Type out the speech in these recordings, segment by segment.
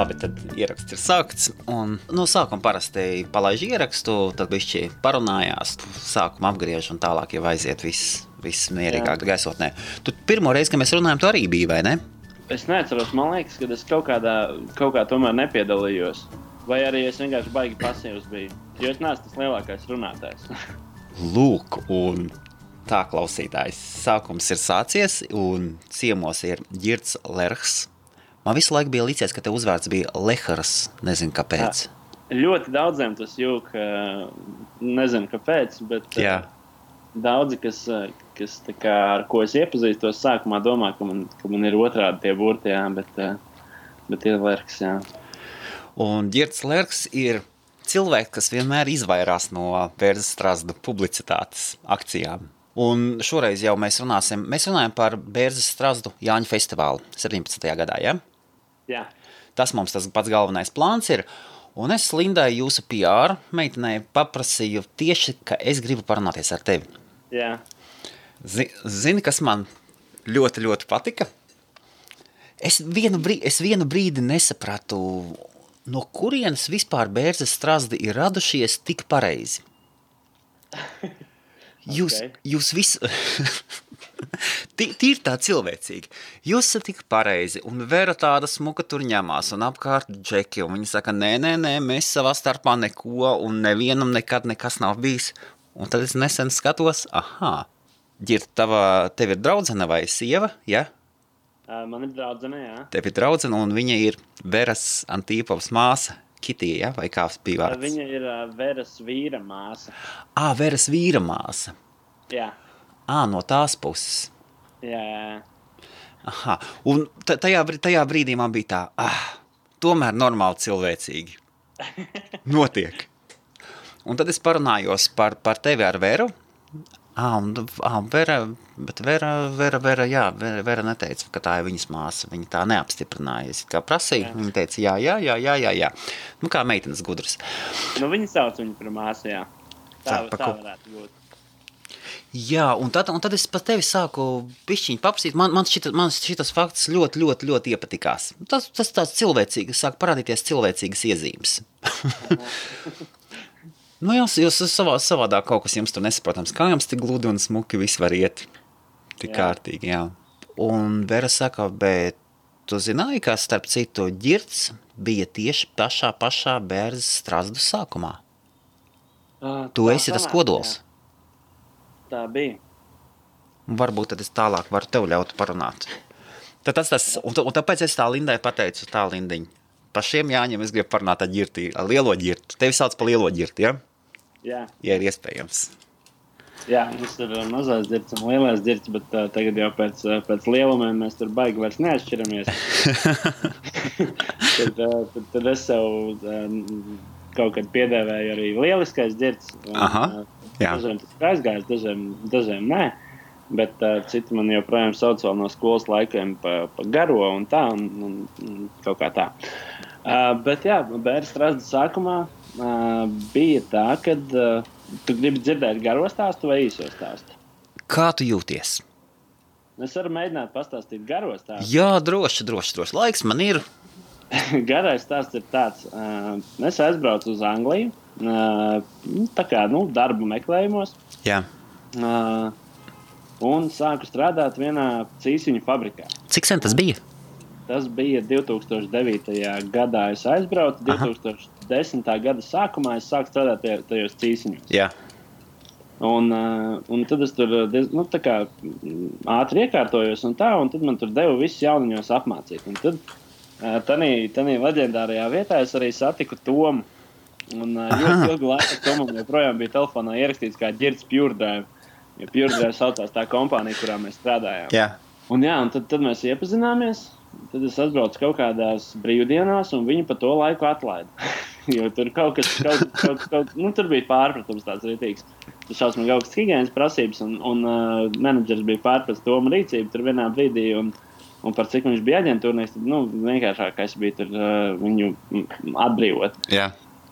Labi, tad ieraksts ir sākts, un no sākuma parasti palaiž ierakstu, tad bišķi parunājās, sākuma apgriež un tālāk jau aiziet viss mierīgāk gaisotnē. Tu pirmo reizi, kad mēs runājam, tu arī biji, vai ne? Es neatceros, man liekas, ka es kaut kā tomēr nepiedalījos. Vai arī es vienkārši baigi pasīvs biju, jo es neesmu tas lielākais runātājs. Lūk, un tā klausītājs. Sākums ir sācies, un ciemos ir Ģirds Lerhs. Man visu laiku bija licies, ka te uzvārds bija Lehars, nezinu kāpēc. Ļoti daudziem tas jūk, nezinu kāpēc, bet daudzi, kas tā kā, ar ko es iepazīstos, sākumā domā, ka man ir otrādi tie burti, jā, bet ir Lerhs, jā. Un Ģirds Lerhs ir cilvēks, kas vienmēr izvairās no Bērzes Strazdu publicitātes akcijām. Un šoreiz jau mēs runājam par Bērzes Strazdu Jāņu festivālu 17. gadā, ja? Jā. Tas mums tas pats galvenais plāns ir. Un es Lindai jūsu PR meitenei paprasīju tieši, ka es gribu parunāties ar tevi. Jā. Zini, kas man ļoti, ļoti patika? Es vienu brīdi nesapratu, no kurienes vispār Bērzes Strazdi ir radušies tik pareizi. Jūs visu... Tīri tā cilvēcīgi. Jūs esat tik pareizi, un Vera tāda smuka tur ņemās, un apkārt džeki, un viņi saka, nē, mēs savā starpā neko, un nevienam nekad nekas nav bijis. Un tad es nesen skatos, Ģirt, tev ir draudzene vai sieva, ja? Man ir draudzene, jā. Tev ir draudzene, un viņa ir Veras Antīpovas māsa, Kitija, ja? Vai kā bija vārds? Viņa ir Veras vīra māsa. Veras vīra māsa. Jā. No tās puses. Jā. Aha, un tajā brīdī man bija tā, tomēr normāli cilvēcīgi. Notiek. Un tad es parunājos par tevi ar Veru. Vera neteica, ka tā ir viņas māsa. Viņa tā neapstiprināja. Es kā prasīju, viņa teica, jā. Nu, kā meitenes gudras. Nu, viņa sauc viņu par māsu, jā. Tā varētu būt. Jā, un tad es pat tevi sāku pišķiņu paprasīt. Man šitas fakts ļoti iepatikās. Tas tāds cilvēcīgs, sāk parādīties cilvēcīgas iezīmes. Nu, jūs savādāk kaut kas jums tur nesaprotams. Kā jums tik gludi un smuki viss var iet? Tik kārtīgi, jā. Un Vera saka, bet tu zināji, ka starp citu Ģirds bija tieši pašā Bērzes Strazdu sākumā? Tu esi tas kodols. Jā. Tā bija. Varbūt tad es tālāk varu tev ļaut parunāt. Un tāpēc es tā Lindai pateicu, tā Lindiņa. Par šiem Jāņiem es gribu parunāt ar Ģirti, ar lielo Ģirtu. Tevi sauc par lielo Ģirti, ja? Jā. Ja ir iespējams. Jā, mums ir mazais Ģirts un lielais Ģirts, bet tagad jau pēc lielumiem mēs tur baigi vairs neatšķiramies. tad es sev kaut kad piedēvēju arī lieliskais Ģirts. Dažiem tas ir aizgājis, dažiem nē, bet citi man joprojām sauc vēl no skolas laikiem pa garo un tā, un kaut kā tā. Bet jā, Bērzes Strazdu sākumā bija tā, kad tu gribi dzirdēt garo stāstu vai īso stāstu? Kā tu jūties? Es varu mēģināt pastāstīt garo stāstu. Jā, droši. Laiks man ir. Garais stāsts ir tāds. Es aizbraucu uz Angliju, tā kā, darba meklējumos. Jā. Un sāku strādāt vienā cīsiņu fabrikā. Cik sen tas bija? Tas bija 2009. gadā. Es aizbraucu, 2010. gada sākumā es sāku strādāt tajos cīsiņos. Jā. Un tad es tur tā kā ātri iekārtojos un tad man tur deva visus jauniņos apmācīt. Un tad tanī leģendārajā vietā es arī satiku Tomu. Un ļoti ilgu laiku Tomam joprojām bija telefonā ierakstīts kā Ģirds Pure Drive. Jo Pure Drive saucās tā kompānija, kurā mēs strādājām. Jā. Un tad mēs iepazināmies. Tad es atbraucu kaut kādās brīvdienās, un viņi pa to laiku atlaida. Jo tur kaut kas, tur bija pārpratums tāds rītīgs. Tur šausmīgi augstas higienas prasības, un menedžers bija pārpratis Toma rīcību tur vienā brīdī, un par cik viņš bija aģentūrnieks, tad, vienkāršākais bija tur viņu atbrīvot. Jā.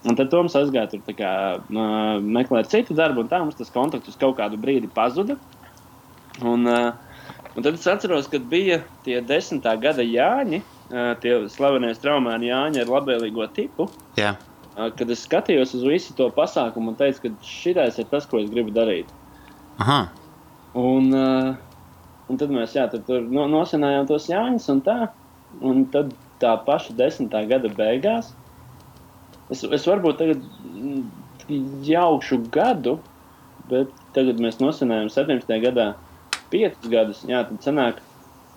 Un tad Toms aizgāja tur tā kā meklēt citu darbu, un tā mums tas kontakts uz kaut kādu brīdi pazuda. Un tad es atceros, kad bija tie 10. gada Jāņi, tie slavenie straumēni Jāņi ar labvēlīgo tipu. Jā. Kad es skatījos uz visu to pasākumu un teicu, ka šitais ir tas, ko es gribu darīt. Aha. Un tad mēs tur nosinājām tos Jāņus un tā. Un tad tā paša 10. gada beigās. Es varbūt tagad jaukšu gadu, bet tagad mēs nosinājām 17. gadā 5 gadus. Jā, tad sanāk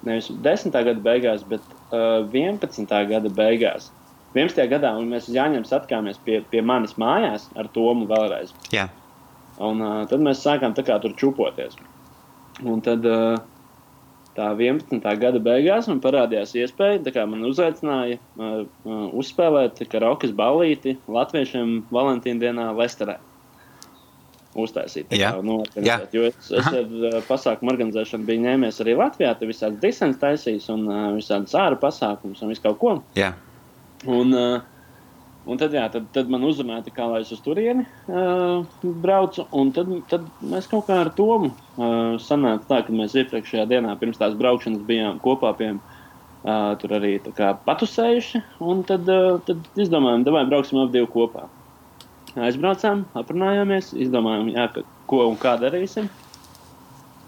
nevis 10. gada beigās, bet 11. gada beigās. 11. gadā un mēs uz Jāņiem satikāmies pie manis mājās ar Tomu vēlreiz. Jā. Un tad mēs sākām tā kā tur čupoties. Un tad tā 11. gada beigās man parādījās iespēja, tā kā man uzaicināja uzspēlēt karaokas ballīti latviešiem Valentīna dienā Lesterē. Uztaisīt. Organizēt. Jo es ar pasākumu organizēšanu biju ņēmies arī Latvijā, te visādas disens taisījis un visādas āra pasākums un visu kaut ko. Jā. Un tad man uzrunāja, kā lai es uz turieni braucu, un tad mēs kaut kā ar Tomu sanāca tā, ka mēs iepriekšējā dienā pirms tās braukšanas bijām kopā pie tur arī tā kā patusējuši, un tad izdomājām, davai brauksim ap 2 kopā. Aizbraucām, aprunājāmies, izdomājām, ko un kā darīsim.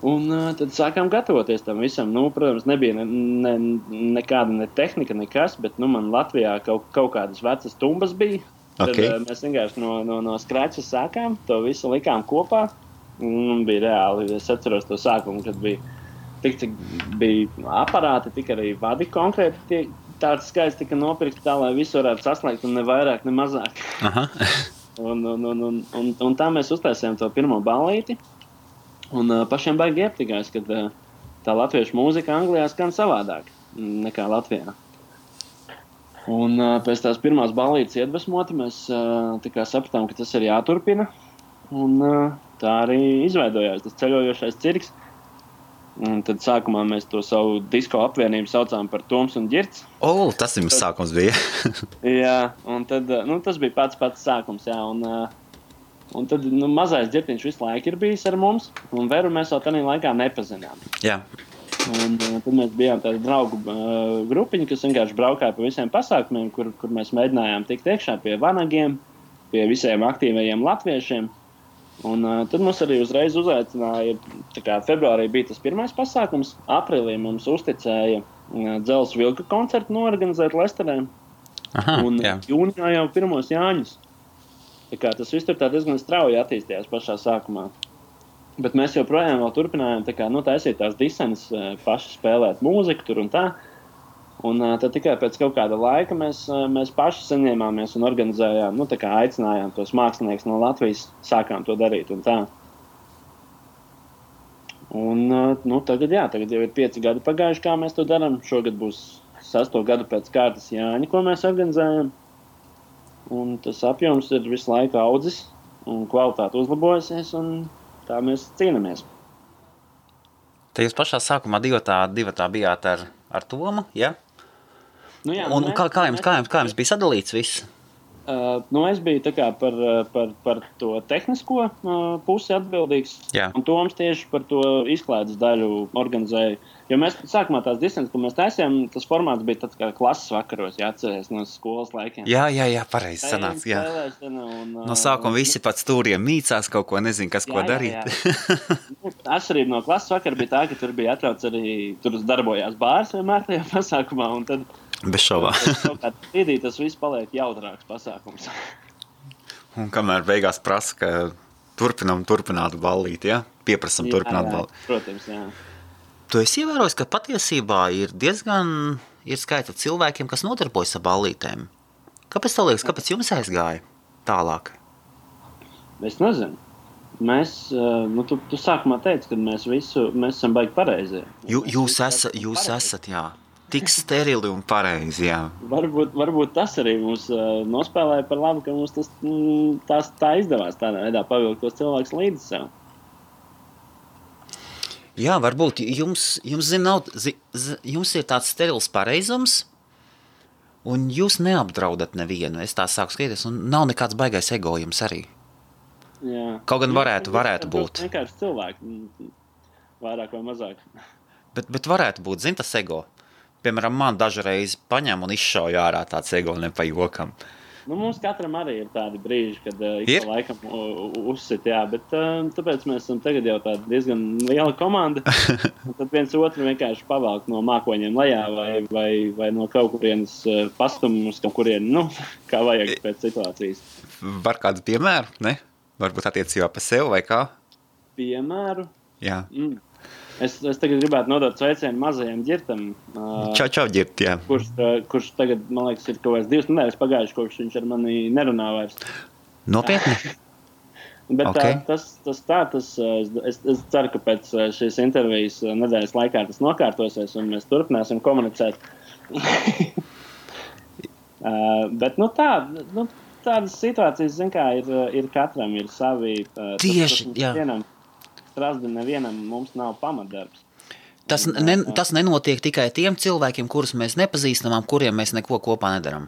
Un tad sākām gatavoties tam visam. Protams, nebija nekāda ne tehnika, nekas, bet man Latvijā kaut kādas vecas tumbas bija. Okay. Tad mēs vienkārši no skreča sākām, to visu likām kopā. Un bija reāli, es atceros to sākumu, kad bija tik, cik bija aparāti, tik arī vadi konkrēti. Tāds skaits tika nopirkts tā, lai visu varētu saslēgt un ne vairāk, ne mazāk. Aha. Un tā mēs uztaisījām to pirmo ballīti. Un pašiem baigi iepatikās, ka tā latviešu mūzika Anglijā skan savādāk nekā Latvijā. Un pēc tās pirmās ballītes iedvesmoti mēs tā kā sapratām, ka tas ir jāturpina. Un tā arī izveidojās tas ceļojošais cirks. Un tad sākumā mēs to savu disko apvienību saucām par Toms un Ģirts. Tas jums sākums bija. Jā, un tad, tas bija pats sākums, jā, un tad mazais Ģirtiņš visu laiku ir bijis ar mums, un Veru mēs vēl tādā laikā nepazinām. Jā. Un tad mēs bijām tāda draugu grupiņa, kas vienkārši braukāja pa visiem pasākumiem, kur mēs mēģinājām tikt iekšā pie vanagiem, pie visiem aktīvajiem latviešiem. Un tad mums arī uzreiz uzaicināja, tā kā februārī bija tas pirmais pasākums, aprīlī mums uzticēja Dzelzs Vilka koncertu norganizēt Lesterē. Aha, un jā. Jūnijā jau pirmos Jāņus. Tā kā tas viss tur tā diezgan strauji attīstījās pašā sākumā. Bet mēs joprojām vēl turpinājām taisīt tās disenes, paši spēlēt mūziku tur un tā. Un tad tikai pēc kaut kāda laika mēs paši saņēmāmies un organizējām, aicinājām tos māksliniekus no Latvijas, sākām to darīt un tā. Un tagad jau ir 5 gadi pagājuši, kā mēs to darām. Šogad būs 6. gadu pēc kārtas Jāņi, ko mēs organizējam. Un tas apjoms ir visu laiku audzis un kvalitāte uzlabojusies, un tā mēs cīnāmies. Te jūs pašā sākumā divatā bijāt ar Tomu, ja? Jā, un kā jums bija sadalīts viss? Es biju tā kā par to tehnisko pusi atbildīgs, jā. Un Toms tieši par to izklaides daļu organizēja. Jo mēs sākumā tās disenes, ko mēs taisījām, tas formāts bija tāds kā klases vakaros, jāatceries no skolas laikiem. Jā, pareizi sanāca, jā. No sākuma visi pat stūriem mīcās kaut ko, nezinu, kas ko darīt. Jā. Atšķirība no klases vakara bija tā, ka tur bija atļauts arī, tur darbojās bārs vienmēr tajā pasākumā, un tad bez šaubā. Kaut kādā brīdī tas viss paliek jautrāks pasākums. Un kamēr beigās prasa, ka turpinātu ballīt, ja? Pieprasam turpināt ballīt. Protams, jā. Tu esi ievērojis, ka patiesībā ir skaita cilvēkiem, kas nodarbojas ar ballītēm. Kāpēc tev liekas, kāpēc jums aizgāja tālāk? Es nezinu. Mēs, tu sākumā teici, ka mēs esam baigi pareizi. Jūs esat, jā. Tik sterili un pareizi, jā. Varbūt tas arī mums nospēlēja par labu, ka mums tā izdevās tādā veidā pavilkt tos cilvēkus līdzi sev. Jā, varbūt jums ir tāds sterils pareizums, un jūs neapdraudat nevienu. Es tā sāku skatīties, un nav nekāds baigais ego jums arī. Jā. Kaut gan varētu būt. Vienkārši cilvēki, vairāk vai mazāk. Bet varētu būt, tas ego. piemēram, man dažreiz paņem un izšauj ārā tāds egoli pa jokam. Nu, mums katram arī ir tādi brīži, kad ik pa laikam uzsit, jā, bet tāpēc mēs esam tagad jau tāda diezgan liela komanda. Un tad viens otru vienkārši pavelk no mākoņiem lejā vai no kaut kurienes pastumus, kaut kurien, nu, kā vajag pēc situācijas. Var kādu piemēru, ne? Varbūt attiecībā pa sev vai kā? Piemēru? Jā. Es tagad gribētu nodot sveicienu mazajam ģirtam. Čau, ģirt, jā. Kurš tagad, man liekas, ir kaut kāds 2 nedēļas pagājuši, kopš viņš ar mani nerunā vairs. Nopietni? Bet okay. Es ceru, ka pēc šīs intervijas nedēļas laikā tas nokārtosies un mēs turpināsim komunicēt. Bet, tādas situācijas, zin kā, ir katram, ir savi... Tieši, jā. Strasdi nevienam mums nav pamatdarbs. Tas nenotiek tikai tiem cilvēkiem, kurus mēs nepazīstam, kuriem mēs neko kopā nedaram.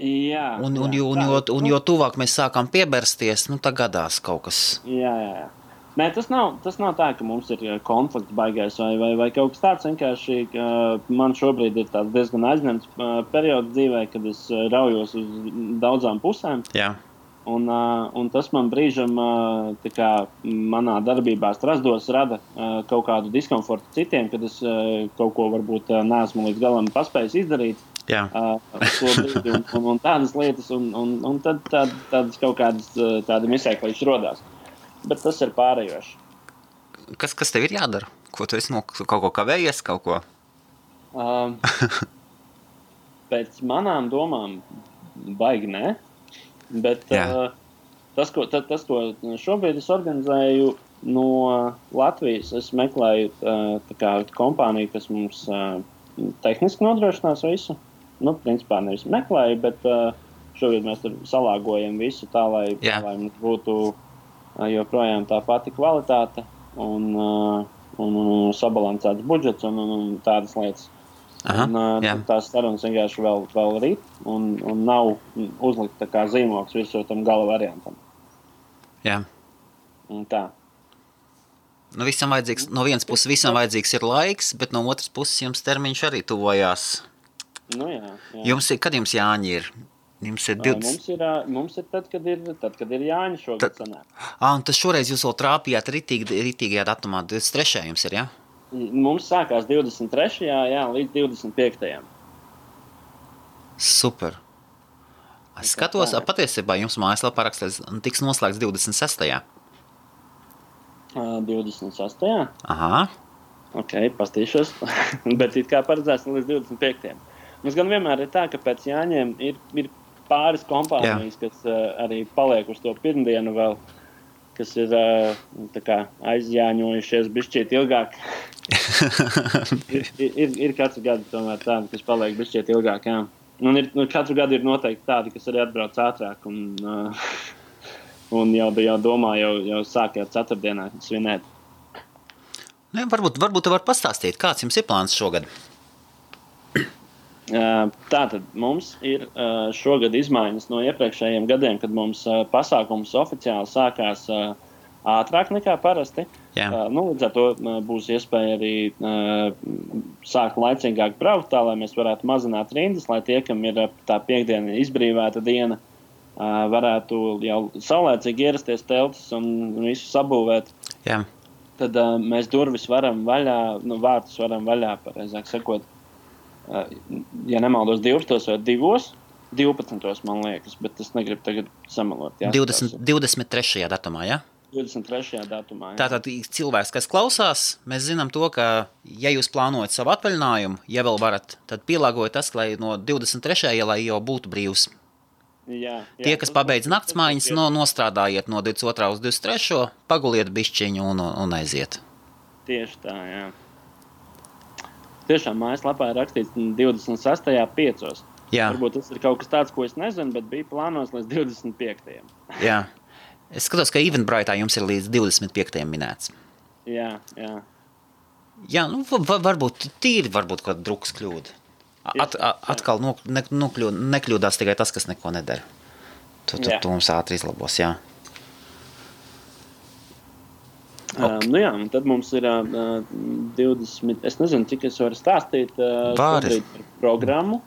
Jā. Jo tuvāk mēs sākam piebersties, tā gadās kaut kas. Jā. Nē, tas nav tā, ka mums ir konflikts baigais vai kaut kas tāds. Vienkārši man šobrīd ir tāds diezgan aizņemts periods dzīvē, kad es raujos uz daudzām pusēm. Jā. Un tas man brīžam manā darbībā strasdos rada kaut kādu diskomfortu citiem, kad es kaut ko varbūt neesmu līdz galam paspējis izdarīt. Jā. Un tādas lietas, un tad tādas kaut kādas tādi misēklīši rodās. Bet tas ir pārējoši. Kas tev ir jādara? Ko tu esi kaut ko kavējies, kaut ko? Pēc manām domām baigi nē. Bet tas, ko šobrīd es organizēju no Latvijas, es meklēju kompāniju, kas mums tehniski nodrošinās visu. Principā nevis meklēju, bet šobrīd mēs tur salāgojam visu tā, lai mums būtu joprojām tā pati kvalitāte un sabalansēts budžets un tādas lietas. Tās sarunas vienkārši vēl rīt un nav uzlikt tā kā zīmoks visu tam gala variantam. Jā. Un tā. No vienas puses visam vajadzīgs ir laiks, bet no otras puses jums termiņš arī tuvojās. Jā. Kad jums Jāņi ir? Jums ir 20... Mums ir tad, kad ir Jāņi šogad sanāk. Un tas šoreiz jūs vēl trāpījāt ritīgajā datumā, 23. jums ir, jā? Mums sākās 23. Līdz 25. Super. Es skatos, patiesībā jums mājaslapā rakstīts, tiks noslēgts 26. 26. Aha. Ok, pastīšos. Bet it kā paredzēts līdz 25. Mums gan vienmēr ir tā, ka pēc Jāņiem ir pāris kompānijas, kas arī paliek uz to pirmdienu vēl, kas ir aizjāņojušies bišķiet ilgāk. ir katru gadu tomēr tādi, kas paliek bišķiet ilgāk, jā. Un katru gadu ir noteikti tādi, kas arī atbrauc ātrāk un jau domā, jau sāk jau ceturtdienā svinēt. Varbūt tu var pastāstīt, kāds jums ir plāns šogad? Tātad mums ir šogad izmaiņas no iepriekšējiem gadiem, kad mums pasākums oficiāli sākās ātrāk nekā parasti. Līdz ar to būs iespēja arī sākt laicīgāk braukt tā, lai mēs varētu mazināt rindas, lai tie, kam ir tā piekdiena izbrīvēta diena, varētu jau saulēcīgi ierasties teltis un visu sabūvēt. Jā. Tad mēs durvis varam vaļā, vārtus varam vaļā, pareizāk sakot, ja nemaldos 12 vai 12, man liekas, bet es negribu tagad samalot. 23. datumā, ja? 23. datumā, jā. Tātad cilvēks, kas klausās, mēs zinām to, ka, ja jūs plānojat savu atvaļinājumu, ja vēl varat, tad pielāgojiet tas, lai no 23. lai jau būtu brīvs. Jā, tie, kas pabeidz naktsmaiņas, nostrādājiet no 22. uz 23. paguliet bišķiņu un aiziet. Tieši tā, jā. Tiešām mājaslapā ir rakstīts 26. 5. Jā. Varbūt tas ir kaut kas tāds, ko es nezinu, bet bija plānos līdz 25. Jā. Es skatos, ka Eventbrite'ā jums ir līdz 25. minēts. Jā. Jā, varbūt kaut kāda drukas kļūda. Atkal nekļūdās tikai tas, kas neko nedara. Tu mums ātri izlabos, jā. Okay. Nu jā, un tad mums ir 20, es nezinu, cik es varu stāstīt šobrīd par programmu.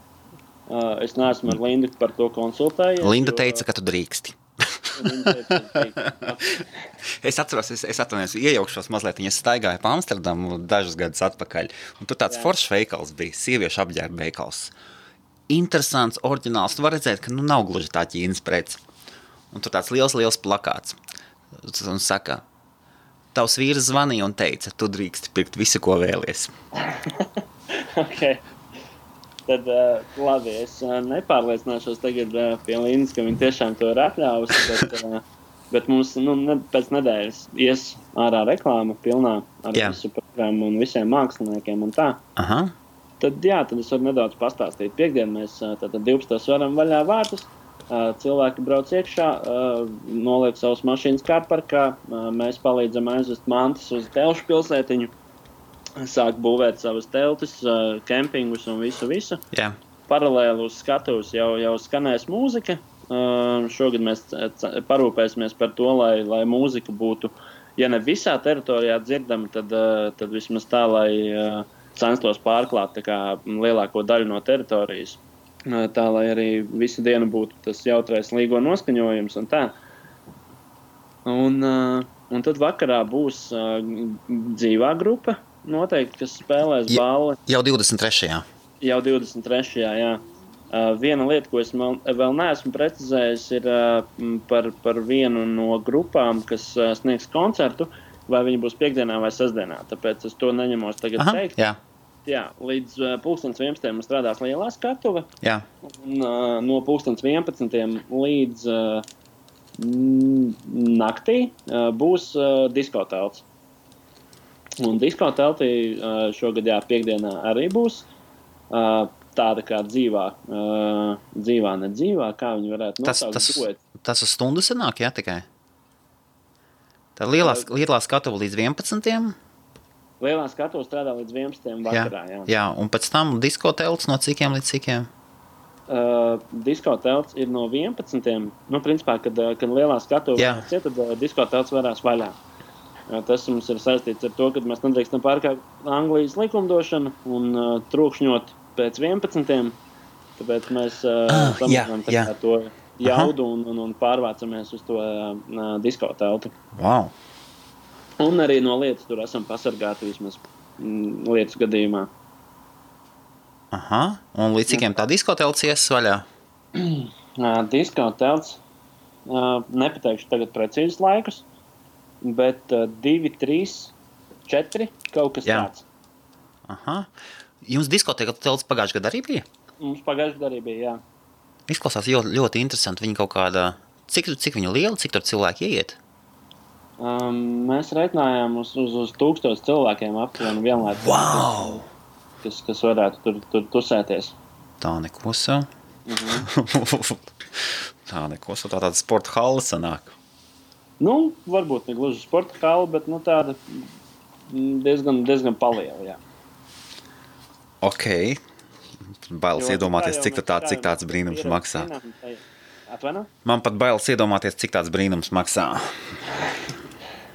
Es neesmu ar Lindu par to konsultējies. Linda teica, ka tu drīksti. Es atceros, es atvainojos, iejaukšos mazliet, es staigāju pa Amsterdamu dažus gadus atpakaļ, un tur tāds foršs veikals bija, sieviešu apģērba veikals. Interesants, oriģināls, tu var redzēt, ka nav gluži tā Ķīnas prece. Un tur tāds liels plakāts. Un saka, tavs vīrs zvanīja un teica, tu drīksti pirkt visu, ko vēlies. Ok. Tad labi, es nepārliecināšos tagad pie Lindas, ka viņi tiešām to ir atļāvusi, bet mums pēc nedēļas ies ārā reklāma pilnā ar visu programmu un visiem māksliniekiem un tā. Aha. Tad es varu nedaudz pastāstīt. Piektdien mēs tātad 12. varam vaļā vārtus, cilvēki brauc iekšā, noliek savus mašīnas kārparkā, mēs palīdzam aizvest mantas uz Telšu pilsētiņu, sāk būvēt savas teltis, kempingus un visu. Jā. Paralēli uz skatuves jau skanēs mūzika. Šogad mēs parūpēsimies par to, lai mūzika būtu, ja ne visā teritorijā dzirdama, tad vismaz tā, lai censtos pārklāt tā kā lielāko daļu no teritorijas. Tā, lai arī visu dienu būtu tas jautrais līgo noskaņojums un tā. Un tad vakarā būs dzīvā grupa, noteikti, kas spēlēs balli. Jau 23. Jau 23. jā. Viena lieta, ko es vēl neesmu precizējis, ir par vienu no grupām, kas sniegs koncertu, vai viņi būs piekdienā vai sestdienā. Tāpēc es to neņemos tagad teikt. Jā. Jā, līdz 11. mums strādās lielā skatuve. Jā. Un no 11. līdz naktī būs diskotelts. Un diskoteltī šogad piekdienā arī būs tāda kā dzīvā, nedzīvā, kā viņi varētu nosaukt. Tas uz stundu sanāk, jā, tikai? Tā lielā skatuve līdz 11. Lielā skatuve strādā līdz 11. vakarā, jā. Jā, un pēc tam diskotelts no cikiem līdz cikiem? Diskotelts ir no 11. Principā, kad lielā skatuve varās iet, tad diskotelts varās vaļā. Tas mums ir saistīts ar to, ka mēs nedrīkstam pārkāpt Anglijas likumdošanu un trokšņot pēc 11. Tāpēc mēs samazinām to jaudu un pārvācamies uz to diskoteltu. Wow! Un arī no lietas tur esam pasargāti vismaz lietas gadījumā. Aha, un līdz cikiem tā diskotelts ies vaļā? Diskotelts, nepateikšu tagad precīzus laikus, bet 2, 3, 4, kaut kas tāds. Aha. Jums diskotelts pagājušajā gadā arī bija? Mums pagājušajā gadā arī bija, jā. Izklausās ļoti interesanti. Viņi kaut kādā, cik viņa liela, cik tur cilvēki ieiet? Mēs reiķinājām uz 1000 cilvēkiem aptuveni vienlaicīgi. Wow! Kas varētu tur tusēties. Tā nekosa. Tā nekosa, tā tāda sporta hala sanāk. Varbūt ne gluži sporta hala, bet tāda diezgan paliela, jā. Ok. Bailes iedomāties, cik tāds brīnums maksā. Atvaino? Man pat bailes iedomāties, cik tāds brīnums maksā.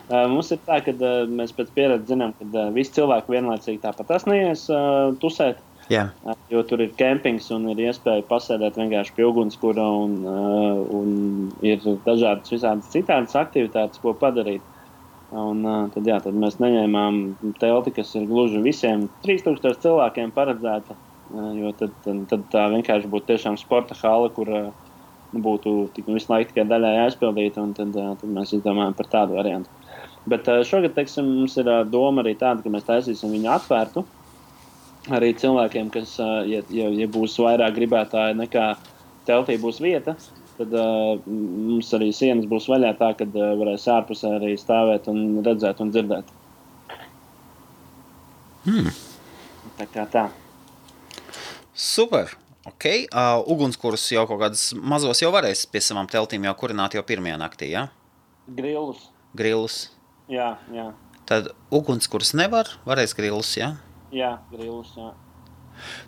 Mums ir tā, ka mēs pēc pieredzes zinām, ka visi cilvēki vienlaicīgi tāpat neies tusēt. Jā. Jo tur ir kempings un ir iespēja pasēdēt vienkārši pie ugunskura un ir dažādas visādas citādas aktivitātes, ko padarīt. Un tad mēs neņēmām telti, kas ir gluži visiem 3000 cilvēkiem paredzēta, jo tad tā vienkārši būtu tiešām sporta hala, kur būtu visu laiku tikai daļai aizpildīta, un tad mēs izdomājam par tādu variantu. Bet šogad, teiksim, mums ir doma arī tāda, ka mēs taisīsim viņu atvērtu arī cilvēkiem, kas, ja būs vairāk gribētāji nekā teltī būs vieta, tad mums arī sienas būs vaļā tā, kad varēs ārpusē arī stāvēt un redzēt un dzirdēt. Tā kā tā. Super! Ok. Ugunskurus jau kaut kādas mazos jau varēs pie savām teltīm jau kurināt jau pirmajā naktī, jā? Grillus. Jā. Tad ugunskurs varēs grillus, jā? Jā, grillus, jā.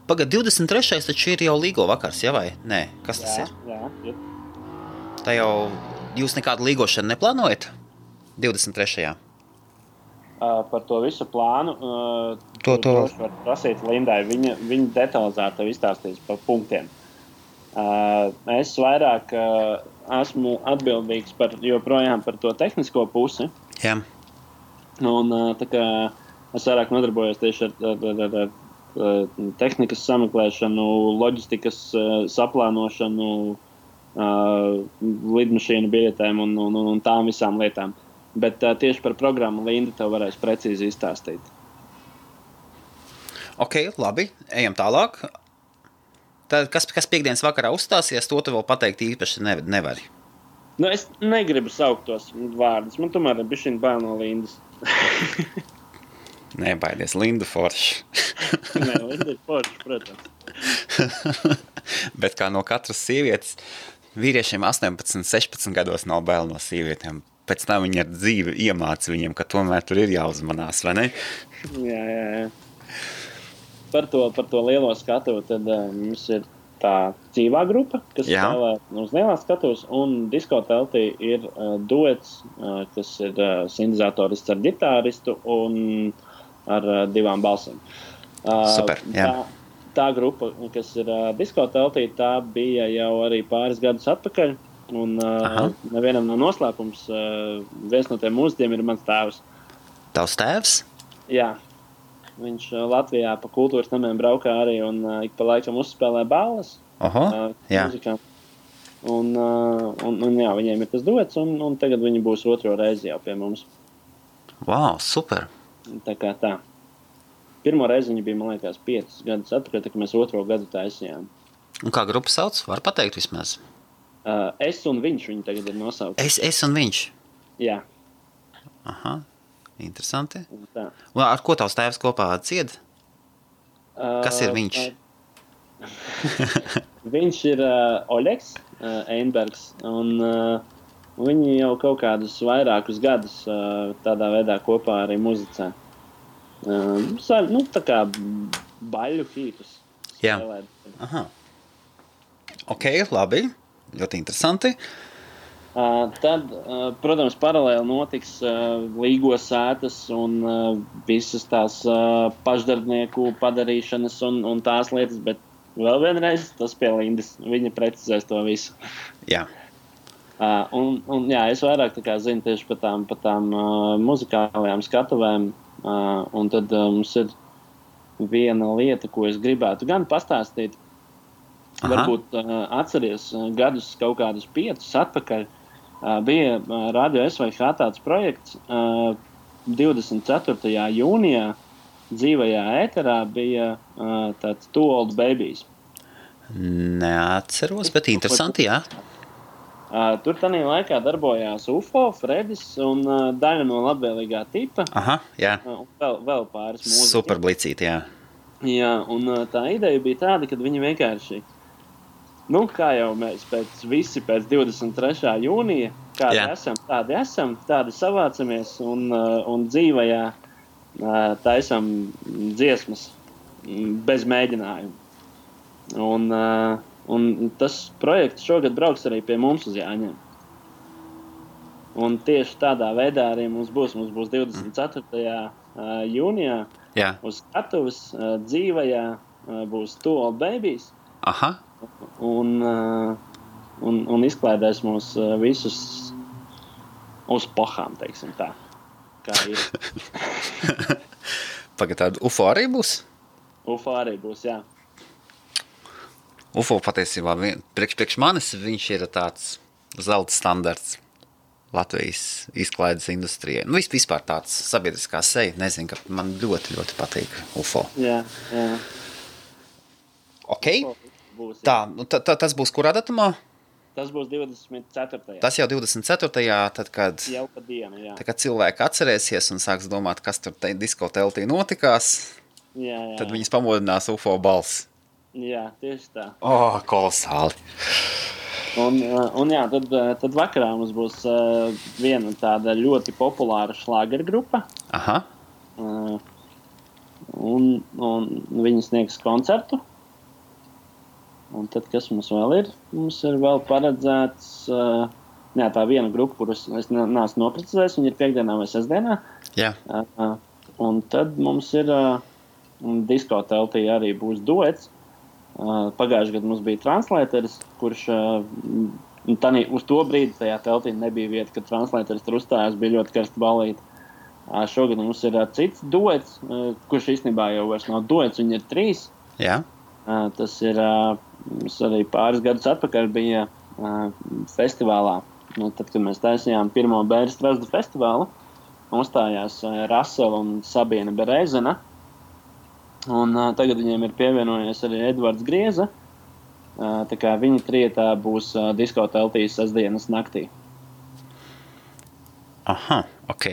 Pagad, 23. taču ir jau līgo vakars, jā vai? Nē, kas tas ir? Jā. Tā jau jūs nekādu līgošanu neplānojat? 23. Par to visu plānu droši var prasīt Lindai. Viņa detalizēti izstāstīs par punktiem. Es vairāk esmu atbildīgs joprojām par to tehnisko pusi. Jā. Un tā kā es vairāk nodarbojos tieši ar tehnikas sameklēšanu, loģistikas saplānošanu, lidmašīnu biļetēm un tām visām lietām. Bet tieši par programmu Linda tev varēs precīzi izstāstīt. Ok, labi. Ejam tālāk. Tad, kas piekdienas vakarā uzstāsies, to tu vēl pateikt īpaši nevari. Nu, es negribu saukt tos vārdus. Man tomēr ir bišķiņ bail no Lindas. Nebaidies, Linda forši. Nē, Linda ir forši, protams. Bet kā no katras sievietes, vīriešiem 18, 16 gados nav bail no sievietēm. Pēc tam viņi ar dzīvi iemāca viņiem, ka tomēr tur ir jāuzmanās, vai ne? Jā. Par to lielo skatuvu tad mums ir tā dzīvā grupa, kas spēlē uz lielā skatuvas, un diskoteltī ir duets, kas ir sintēzatorists ar ģitāristu un ar 2 balsīm. Super, jā. Tā grupa, kas ir diskoteltī, tā bija jau arī pāris gadus atpakaļ. Un nevienam nav noslēpums. Viens no tiem mūziķiem ir mans tēvs. Tavs tēvs? Jā. Viņš Latvijā pa kultūras namiem braukā arī un ik pa laikam uzspēlē balles. Jā. Muzikām. Un jā, viņiem ir tas duets, un tagad viņi būs 2. reizi jau pie mums. Wow, super. Tā kā tā. Pirmo reizi viņi bija, man liekas, 5 gadus atpakaļ, tā kā mēs 2. gadu taisījām. Un kā grupa sauc? Var pateikt vismaz? Es un viņš viņi tagad ir nosaukt. Es un viņš? Jā. Aha, interesanti. Un ar ko tavs tēvs kopā dzied? Kas ir viņš? Viņš ir Oļegs Einbergs, un viņi jau kaut kādus vairākus gadus tādā veidā kopā arī muzicē. Tā kā baļu hītus. Jā. Aha. Ok, labi. Ļoti interesanti. Tad, protams, paralēli notiks līgo sētas un visas tās pašdarbnieku padarīšanas un tās lietas, bet vēl vienreiz tas pie Lindas. Viņa precizēs to visu. Jā. Un jā, es vairāk tā kā zinu tieši par tām muzikālajām skatuvēm. Un tad mums ir viena lieta, ko es gribētu gan pastāstīt. Varbūt atceries gadus kaut kādus 5 atpakaļ. Bija Radio SVH tāds projekts 24. jūnijā dzīvajā ēterā bija tāds Two Old Babies. Neatceros, bet interesanti, jā. Tur tanī laikā darbojās UFO, Fredis un daļa no labvēlīgā tipa. Aha, jā. Un vēl pāris mūziķi. Super blicīti, jā. Jā, un tā ideja bija tāda, ka viņi vienkārši kā jau mēs pēc 23. jūnija, kādi esam, tādi savācamies un dzīvajā taisam dziesmas bez mēģinājumu. Un tas projekts šogad brauks arī pie mums uz Jāņiem. Un tieši tādā veidā arī mums būs 24. jūnijā uz skatuves dzīvajā būs Two Old Babies. Aha. Un izklaidēs mūs visus uz pohām, teiksim tā. Kā ir. Pagad tādu UFO arī būs? UFO arī būs, jā. UFO patiesībā priekš manis viņš ir tāds zelta standarts Latvijas izklaides industrijai. Vispār tāds sabiedriskā seja. Nezinu, ka man ļoti, ļoti patīk UFO. Jā. Ok. Būs, tā, tas būs kurā datumā? Tas būs 24. Tas jau 24. Tad, kad, jau pa dienu, jā. Tad, kad cilvēki atcerēsies un sāks domāt, kas tur diskoteltī notikās, jā. Tad viņas pamodinās UFO balss. Jā, tieši tā. Kolosāli. Un jā, tad vakarā mums būs viena tāda ļoti populāra šlāgergrupa. Aha. Un viņi sniegs koncertu. Un tad, kas mums vēl ir? Mums ir vēl paredzēts jā, tā viena grupa, kurus es neesmu noprecizējis, viņi ir piekdienā vai sestdienā. Jā. Un tad mums ir disko teltī arī būs duets. Pagājušajā gadā mums bija translēters, kurš uz to brīdi tajā teltī nebija vieta, kad translēters tur uzstājās, bija ļoti karsta balīta. Šogad mums ir cits duets, kurš īstenībā jau vairs nav duets, viņi ir 3. Jā. Tas ir, mums arī pāris gadus atpakaļ bija festivālā. Tad, kad mēs taisījām pirmo Bēres Strazdu festivālu, uzstājās Rasela un Sabīna Berezena. Un tagad viņiem ir pievienojies arī Edvards Grieza. Tā kā viņi trietā būs disko teltīs sestdienas naktī. Aha, ok.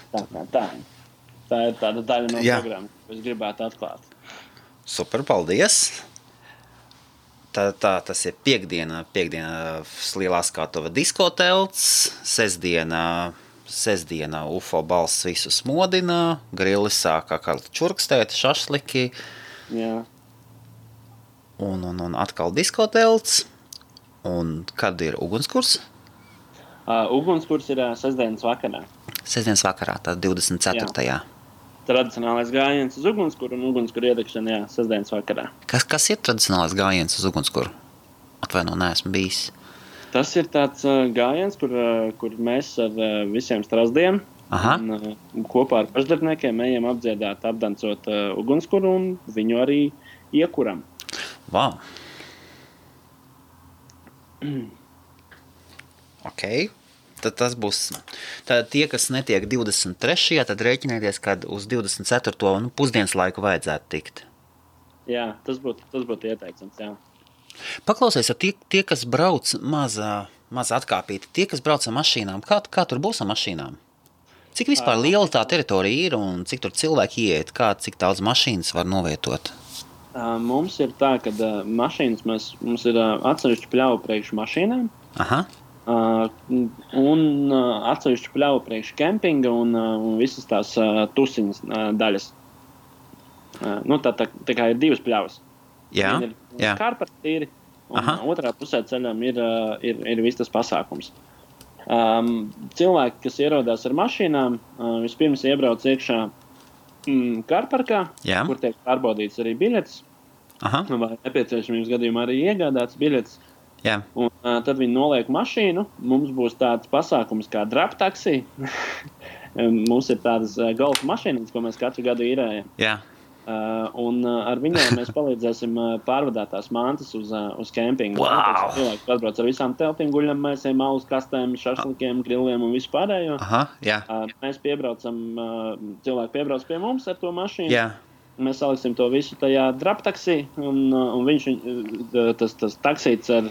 Tā ir tāda daļa no programmas, ko es gribētu atklāt. Super, paldies! Tas ir piekdiena Lielā skatuve diskotelts, sestdiena UFO balss visu smodina, grilli sāk kā čurkstēt, šašliki. Jā. Un atkal diskotelts. Un kad ir ugunskurs? Ugunskurs ir sestdienas vakarā. Sestdienas vakarā, tā 24. Jā. Tradicionālais gājiens uz ugunskuru un ugunskura iedegšana, jā, sestdienas vakarā. Kas ir tradicionālais gājiens uz ugunskuru? Atvaino, neesmu bijis. Tas ir tāds gājiens, kur mēs ar visiem strazdiem un kopā ar pašdarbniekiem ejam apdziedāt, apdancot ugunskuru un viņu arī iekuram. Wow. Ok. Tad tas būs, tad tie, kas netiek 23. tad rēķinieties, kad uz 24. Pusdienas laiku vajadzētu tikt. Jā, tas būtu ieteicams, jā. Paklausies, tie kas brauc maza atkāpīti, tie, kas brauc ar mašīnām, kā tur būs ar mašīnām? Cik vispār liela tā teritorija ir un cik tur cilvēki ieiet, cik daudz mašīnas var novietot? Mums ir tā, ka mašīnas mums ir atsevišķi pļauju priekš mašīnām. Aha. Un atsevišķi pļauju priekš kempinga un visas tās tusiņas daļas. Tā kā ir 2 pļavas. Jā, ir kārpartīri, un otrā pusē ceļam ir viss tas pasākums. Cilvēki, kas ierodās ar mašīnām, vispirms iebrauc iekšā kārparkā, kur tiek pārbaudīts arī biļetes. Vai nepieciešamības gadījumā arī iegādāts biļetes. Jā. Un tad viņi noliek mašīnu. Mums būs tāds pasākums kā drap taksī. Mums ir tādas golfa mašīnas, ko mēs katru gadu īrējam. Jā. Un ar viņiem mēs palīdzēsim pārvadāt tās mantas uz kempingu. Wow. Cilvēki atbrauc ar visām teltīm, guļamēsiem, alus kastēm, šašlikiem, grilliem un visu pārējo. Jā. Mēs piebraucam, cilvēki piebrauc pie mums ar to mašīnu. Jā. Mēs saliksim to visu tajā drap taksī, un viņš, tas taksīts ar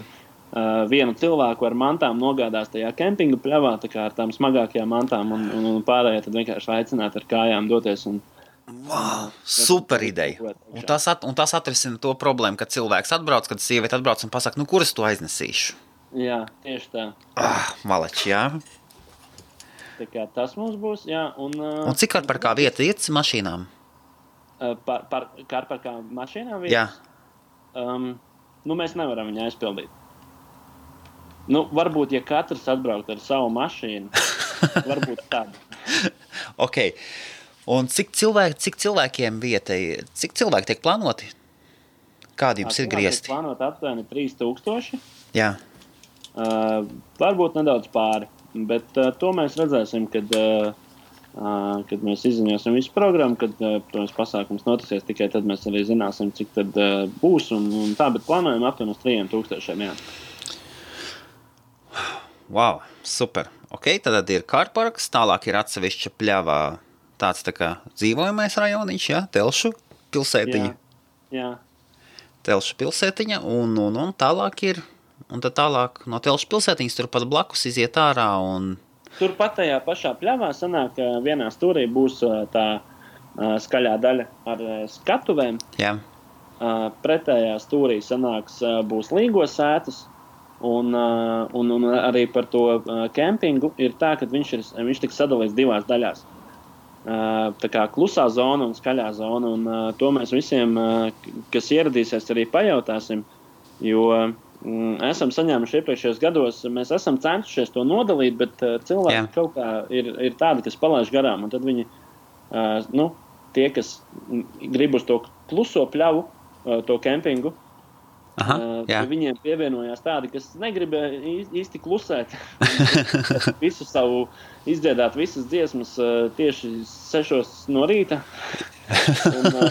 vienu cilvēku ar mantām nogādās tajā kempinga pļavā, tā kā ar tām smagākajām mantām, un pārējie tad vienkārši aicināt ar kājām doties. Wow, super ideja. Un tas atrisina to problēmu, kad cilvēks atbrauc, kad sieviete atbrauc un pasaka, kuras to aiznesīšu? Jā, tieši tā. Malači, jā. Tā kā tas mums būs, jā. Un cik kārparkā vieta iet mašīnām? Kārparkā mašīnām vietas? Jā. Mēs nevaram viņu aizpildīt. Varbūt, ja katrs atbraukt ar savu mašīnu, varbūt tādu. Ok. Un cik cilvēkiem vietai, cik cilvēki tiek plānoti? Kādi jums ir griezti? Tiek plānot aptuveni 3000. Jā. Varbūt nedaudz pāri, bet to mēs redzēsim, kad mēs izziņosim visu programmu, kad protams, pasākums notisies, tikai tad mēs arī zināsim, cik tad būs un tā, bet plānojam aptuveni uz 3000, jā. Wow, super. Ok, tad ir kārparks, tālāk ir atsevišķa pļavā tāds tā kā dzīvojamais rajoniņš, jā, Telšu pilsētiņa. Jā. Telšu pilsētiņa, un tālāk ir, un tad tālāk no Telšu pilsētiņas turpat blakus iziet ārā un... Turpat tajā pašā pļavā sanāk, ka vienā stūrī būs tā skaļā daļa ar skatuvēm. Jā. Pretējā stūrī sanāks būs līgos sētas. Un arī par to kempingu ir tā, ka viņš tiks sadalīts 2 daļās. Tā kā klusā zona un skaļā zona, un to mēs visiem, kas ieradīsies, arī pajautāsim, jo esam saņēmuši iepriekšējos gados, mēs esam centušies to nodalīt, bet cilvēki kaut kā ir tādi, kas palaiž garām. Un tad viņi, tie, kas grib uz to kluso pļavu, to kempingu, viņiem pievienojās tādi, kas negrib īsti klusēt. Visu savu izdziedāt visas dziesmas tieši 6 no rīta.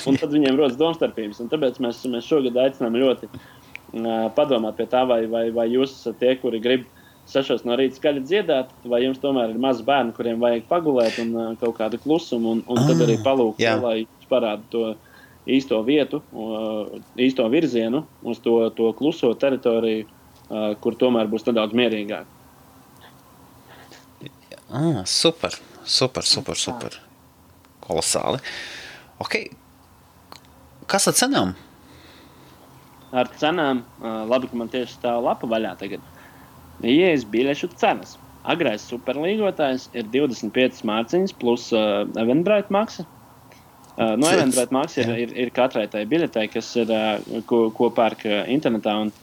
un tad viņiem rodas domstarpības. Un tāpēc mēs šogad aicinām ļoti padomāt pie tā, vai jūs esat tie, kuri grib 6 no rīta skaļi dziedāt, vai jums tomēr ir maz bērni, kuriem vajag pagulēt un kaut kādu klusumu, un tad arī palūkt, lai jūs parāda to īsto vietu, īsto virzienu uz to kluso teritoriju, kur tomēr būs nedaudz mierīgāk. Super. Kolosāli. Ok. Kas ar cenām? Ar cenām, labi, ka man tieši stāv lapa vaļā tagad. Ieejas biļešu cenas. Agrais superlīgotājs ir 25 mārciņas plus Eventbrite maksa. Eventbrite maksa ir katrai tai biļetei, kas ir, ko pērk internetā, un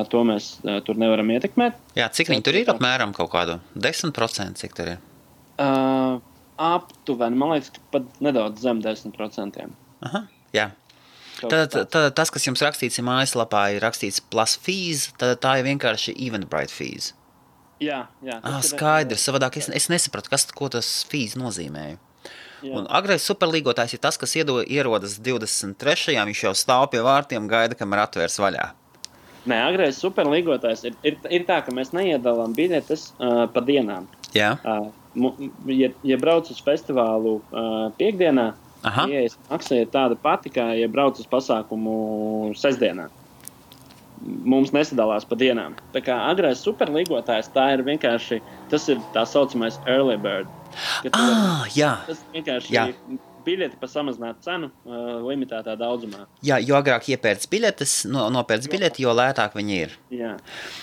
to mēs tur nevaram ietekmēt. Jā, cik viņi tur ir apmēram kaut kādu? 10%, cik tur ir? Aptuveni, man liekas, ka pat nedaudz zem 10%. Aha, jā. Tad tas, kas jums rakstīts mājaslapā, ir rakstīts plus fees, tad tā ir vienkārši Eventbrite fees. Jā. Skaidrs, savādāk es nesapratu, ko tas fees nozīmēja. Jā. Un agrais superlīgotājs ir tas, kas ierodas 23. Viņš jau stāv pie vārtiem, gaida, kamēr atvērs vaļā. Nē, agrais superlīgotājs ir tā, ka mēs neiedalām biļetes pa dienām. Jā. Ja brauc uz festivālu piekdienā, ieejas maksa ir tāda pati, kā ja brauc uz pasākumu sestdienā. Mums nesadalās pa dienām. Tā kā agrais superlīgotājs, tā ir vienkārši, tas ir tā saucamais early bird. Jā. Tas vienkārši biļeti par samazinātu cenu limitētā daudzumā. Jā, jo agrāk iepērc biļetes, nopērc biļeti, jo lētāk viņi ir. Jā,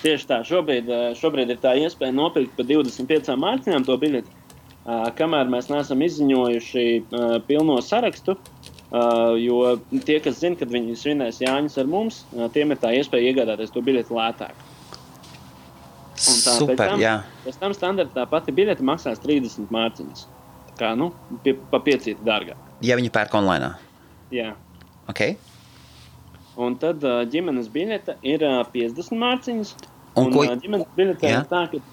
tieši tā. Šobrīd ir tā iespēja nopirkt par 25 mārciņām to biļeti, kamēr mēs neesam izziņojuši pilno sarakstu, jo tie, kas zina, kad viņi svinēs Jāņus ar mums, tiem ir tā iespēja iegādāties to biļeti lētāk. Super, jā. Pēc tam standartā pati biļete maksās 30 mārciņas. Kā, pa 5 dārgāk. Ja viņi pērk online? Jā. Ok. Un tad ģimenes biļete ir 50 mārciņas. Un ģimenes biļete ir tā, ka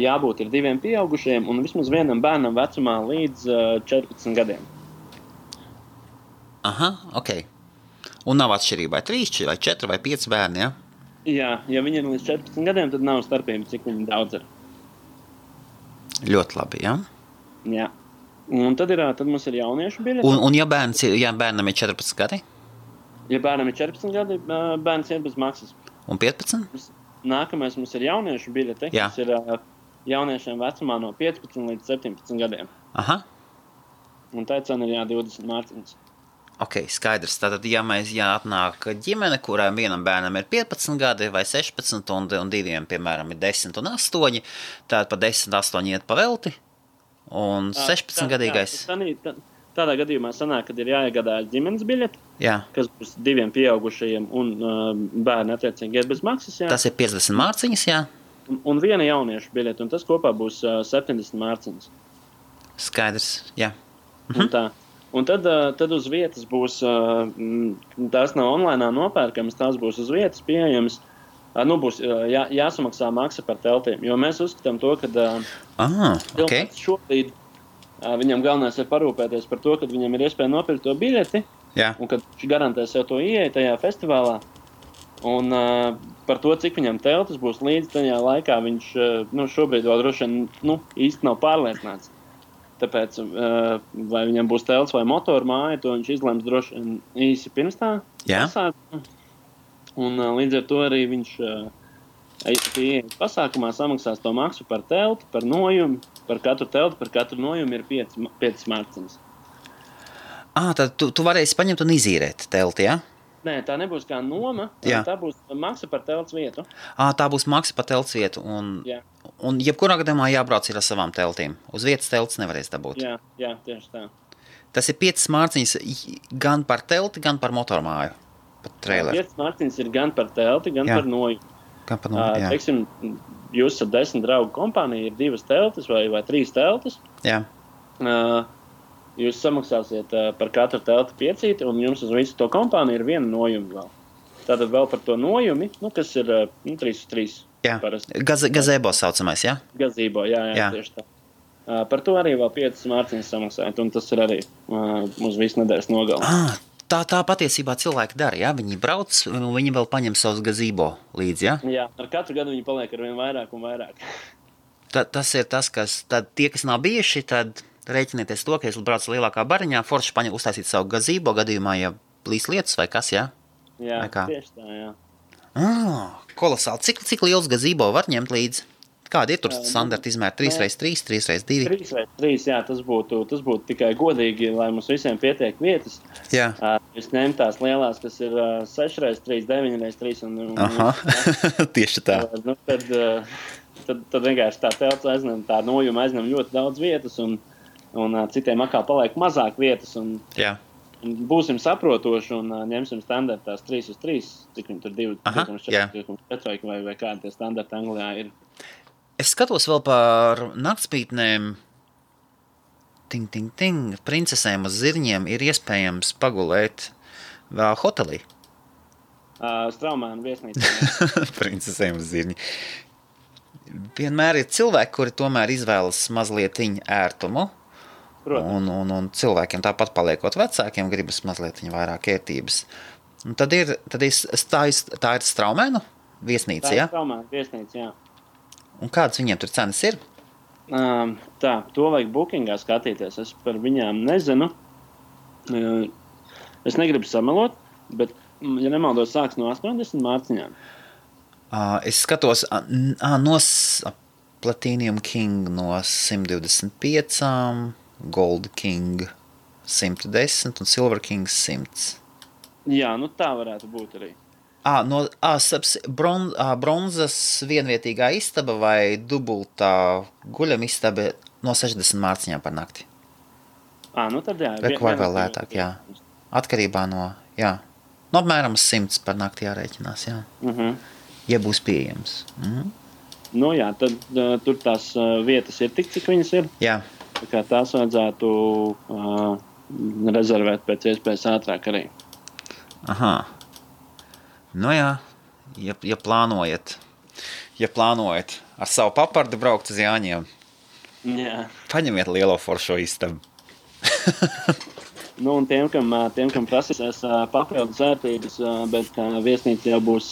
jābūt ir 2 pieaugušiem un vismaz vienam bērnam vecumā līdz 14 gadiem. Aha, ok. Un nav atšķirība, vai 3, vai 4, vai 5 bērni, ja? Jā, ja viņi ir līdz 14 gadiem, tad nav starpība, cik viņi daudz ir. Ļoti labi, jā? Jā. Un tad mums ir jauniešu biļete. Un ja bērnam ir 14 gadi? Ja bērnam ir 14 gadi, bērns ir bez maksas. Un 15? Nākamais mums ir jauniešu biļete, kas ir jauniešiem vecumā no 15 līdz 17 gadiem. Aha. Un tā cena ir 20 mārciņas. Ok, skaidrs. Tātad, ja atnāk ģimene, kurām vienam bērnam ir 15 gadi vai 16 un diviem, piemēram, ir 10 un 8, tad pa 10, 8 iet pa velti, un 16 gadīgais... Tādā gadījumā sanāk, kad ir jāiegādājas ģimenes biļete, kas būs 2 pieaugušajiem un bērni attiecīgi iet bez maksas. Jā. Tas ir 50 mārciņas, jā? Un 1 jauniešu biļete, un tas kopā būs 70 mārciņas. Skaidrs, jā. Un tā. Un tad uz vietas būs, tās nav online nopērkamas, tās būs uz vietas pieejamas, būs jāsamaksā maksa par teltīm, jo mēs uzskatām to, ka šobrīd viņam galvenais ir parūpēties par to, kad viņam ir iespēja nopirkt to biļeti, un kad viņš garantē sev to ieeja tajā festivālā, un par to, cik viņam teltis būs līdz tajā laikā, viņš šobrīd vēl droši vien īsti nav pārliecināts. Tāpēc, vai viņam būs telts vai motoru māja, to viņš izlems droši īsi pirms tā. Un līdz ar to arī viņš pieejas pasākumā samaksās to maksu par telti, par nojumu. Par katru telti, par katru nojumu ir 5 mārciņas. Tad tu varēsi paņemt un izīrēt telti, ja? Nē, tā nebūs kā noma, tā būs maksa par telts vietu. Tā būs maksa par telts vietu, un jebkurā gadījumā jābrauc ir ar savām teltīm. Uz vietas telts nevarēs dabūt. Jā, tieši tā. Tas ir 5 mārciņas gan par telti, gan par motormāju. pat traileru. 5 mārciņas ir gan par telti, gan par nojumu. Gan par nojumu, jā. Teiksim, jūs ar 10 draugu kompāniju ir 2 teltis vai 3 teltis. Jā. Jūs samaksāsiet par katru telti 5, un jums uz visu to kompāniju ir 1 nojuma vēl. Tātad vēl par to nojumi, kas ir 3/3. Jā, gazebo saucamais, jā? Gazebo, jā, tieši tā. Par to arī vēl 5 mārciņas samaksājat, un tas ir arī uz visu nedēļas nogali. Tā patiesībā cilvēki dara, jā? Viņi brauc, un viņi vēl paņem savus gazebo līdzi, jā? Jā, ar katru gadu viņi paliek ar vien vairāk un vairāk. Tas ir tas, kas, tad tie, kas nav bijuši, tad rēķinieties to, ka es braucu lielākā bariņā, forši paņem uztaisīt savu gazebo gadījumā, ja plīs lietas vai kas, jā? Jā, tieši tā, jā. Kolosāli. Cik liels gazebo var ņemt līdzi? Kādi ir tur standarti izmēri? 3x3, 3x2? 3x3, jā, tas būtu tikai godīgi, lai mums visiem pietiek vietas. Jā. Jūs ņemt tās lielās, kas ir 6x3, 9x3 un tieši tā. Tad vienkārši tā telts aizņem, tā nojuma aizņem ļoti daudz vietas un citiem atkal paliek mazāk vietas. Jā. Būsim saprotoši un ņemsim standartās 3x3, cik viņi tur 2,4 vai kādi tie standarti Anglijā ir. Es skatos vēl par naktspītnēm. Princesēm uz zirņiem ir iespējams pagulēt vēl hotelī. Straumēnu viesnīcā. Princesēm uz zirņi. Vienmēr ir cilvēki, kuri tomēr izvēlas mazliet ērtumu. Un cilvēkiem tāpat paliekot vecākiem gribas mazliet vairāk ērtības. Un tad tā ir Straumēnu viesnīca, jā? Tā ir Straumēnu viesnīca, jā. Un kādas viņiem tur cenas ir? To vajag bookingā skatīties. Es par viņām nezinu. Es negribu samelot, bet, ja nemaldos, sāks no 80 mārciņām. Es skatos no Platinum King no 125, Gold King 110 un Silver King 100. Jā, tā varētu būt arī. Bronzas vienvietīgā istaba vai dubultā guļam istaba no 60 mārciņām par nakti. Tad jā. Vai vēl lētāk, jā. Atkarībā no apmēram 100 par nakti jārēķinās, jā. Ja būs pieejams. Jā, tad tur tās vietas ir tik, cik viņas ir. Jā. Tā kā tās vajadzētu rezervēt pēc iespējas ātrāk arī. Aha. Ja plānojat ar savu papardu braukt uz Jāņiem, paņemiet lielo foršo istabu. Un tiem, kam prasīsies papildus ērtības, bet viesnīca jau būs,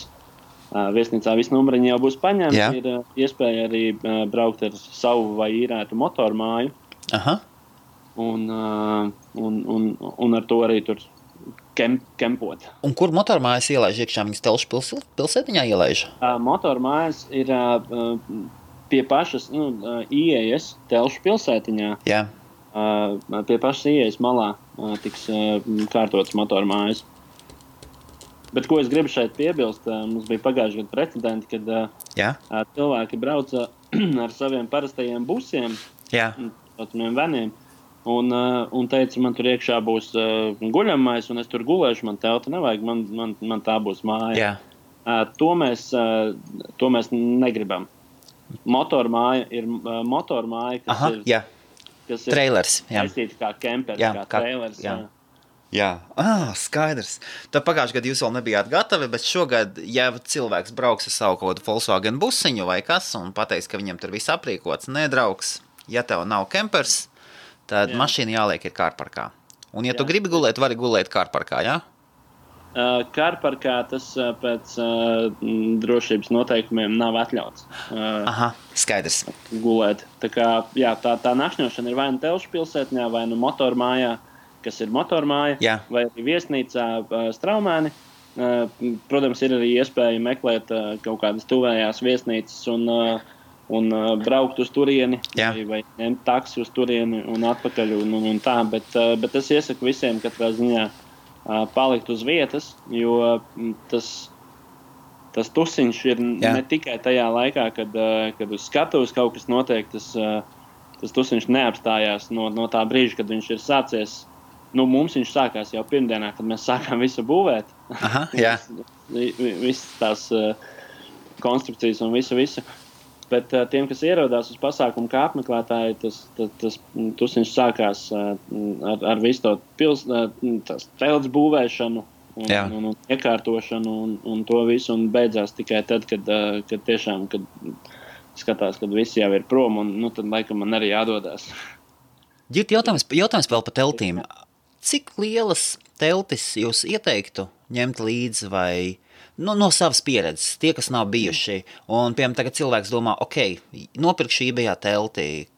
viesnīcā visi numuriņi jau būs paņemti, ir iespēja arī braukt ar savu vai īrētu motormāju. Aha. Un ar to arī tur kempot. Un kur motormājas ielaiž iekšā? Viņas Telšu pilsētiņā ielaiž? Motormājas ir pie pašas ieejas Telšu pilsētiņā. Jā. Pie pašas ieejas malā tiks kārtotas motormājas. Bet ko es gribu šeit piebilst, mums bija pagājuši gadu precedenti, kad cilvēki brauca ar saviem parastajiem busiem, veniem, un teica, man tur iekšā būs guļamais, un es tur gulēšu, man telta nevajag, man tā būs māja. To mēs negribam. Motormāja ir motormāja, kas ir trailers, aiztīta kā kempers, kā trailers. Jā, skaidrs. Tad pagājuši gadu jūs vēl nebijāt gatavi, bet šogad, ja cilvēks brauks ar savu kaut kādu Volkswagen busiņu vai kas un pateiks, ka viņam tur viss aprīkots, nedraugs, ja tev nav kempers, tad mašīna jāliek ir kārparkā. Un ja tu gribi gulēt, vari gulēt kārparkā, jā? Kārparkā tas pēc drošības noteikumiem nav atļauts. Aha, skaidrs. Gulēt. Tā kā, tā nakšņošana ir vai nu Telšu pilsētņā, vai nu motormājā, kas ir motormāja, vai arī viesnīcā Straumēni. Protams, ir arī iespēja meklēt kaut kādas tuvējās viesnīcas un braukt uz turieni, vai ņemt taksi uz turieni un atpakaļ un tā, bet es iesaku visiem katrā ziņā palikt uz vietas, jo tas tusiņš ir ne tikai tajā laikā, kad uz skatuves kaut kas notiek, tas tusiņš neapstājās no tā brīža, kad viņš ir sācies Mums viņš sākās jau pirmdienā, kad mēs sākām visu būvēt. Aha, jā. Visas tās konstrukcijas un visu. Bet tiem, kas ierodās uz pasākumu kā apmeklētāji, tas tusiņš sākās ar visu to telts būvēšanu un iekārtošanu un to visu, un beidzās tikai tad, kad tiešām, kad skatās, kad visi jau ir prom, un tad laikam man arī jādodās. Ģirt, jautājums vēl par teltīm. Cik lielas teltis jūs ieteiktu ņemt līdzi vai no savas pieredzes, tie, kas nav bijuši, un, piemēram, tagad cilvēks domā, nopirkšu eBayā telti,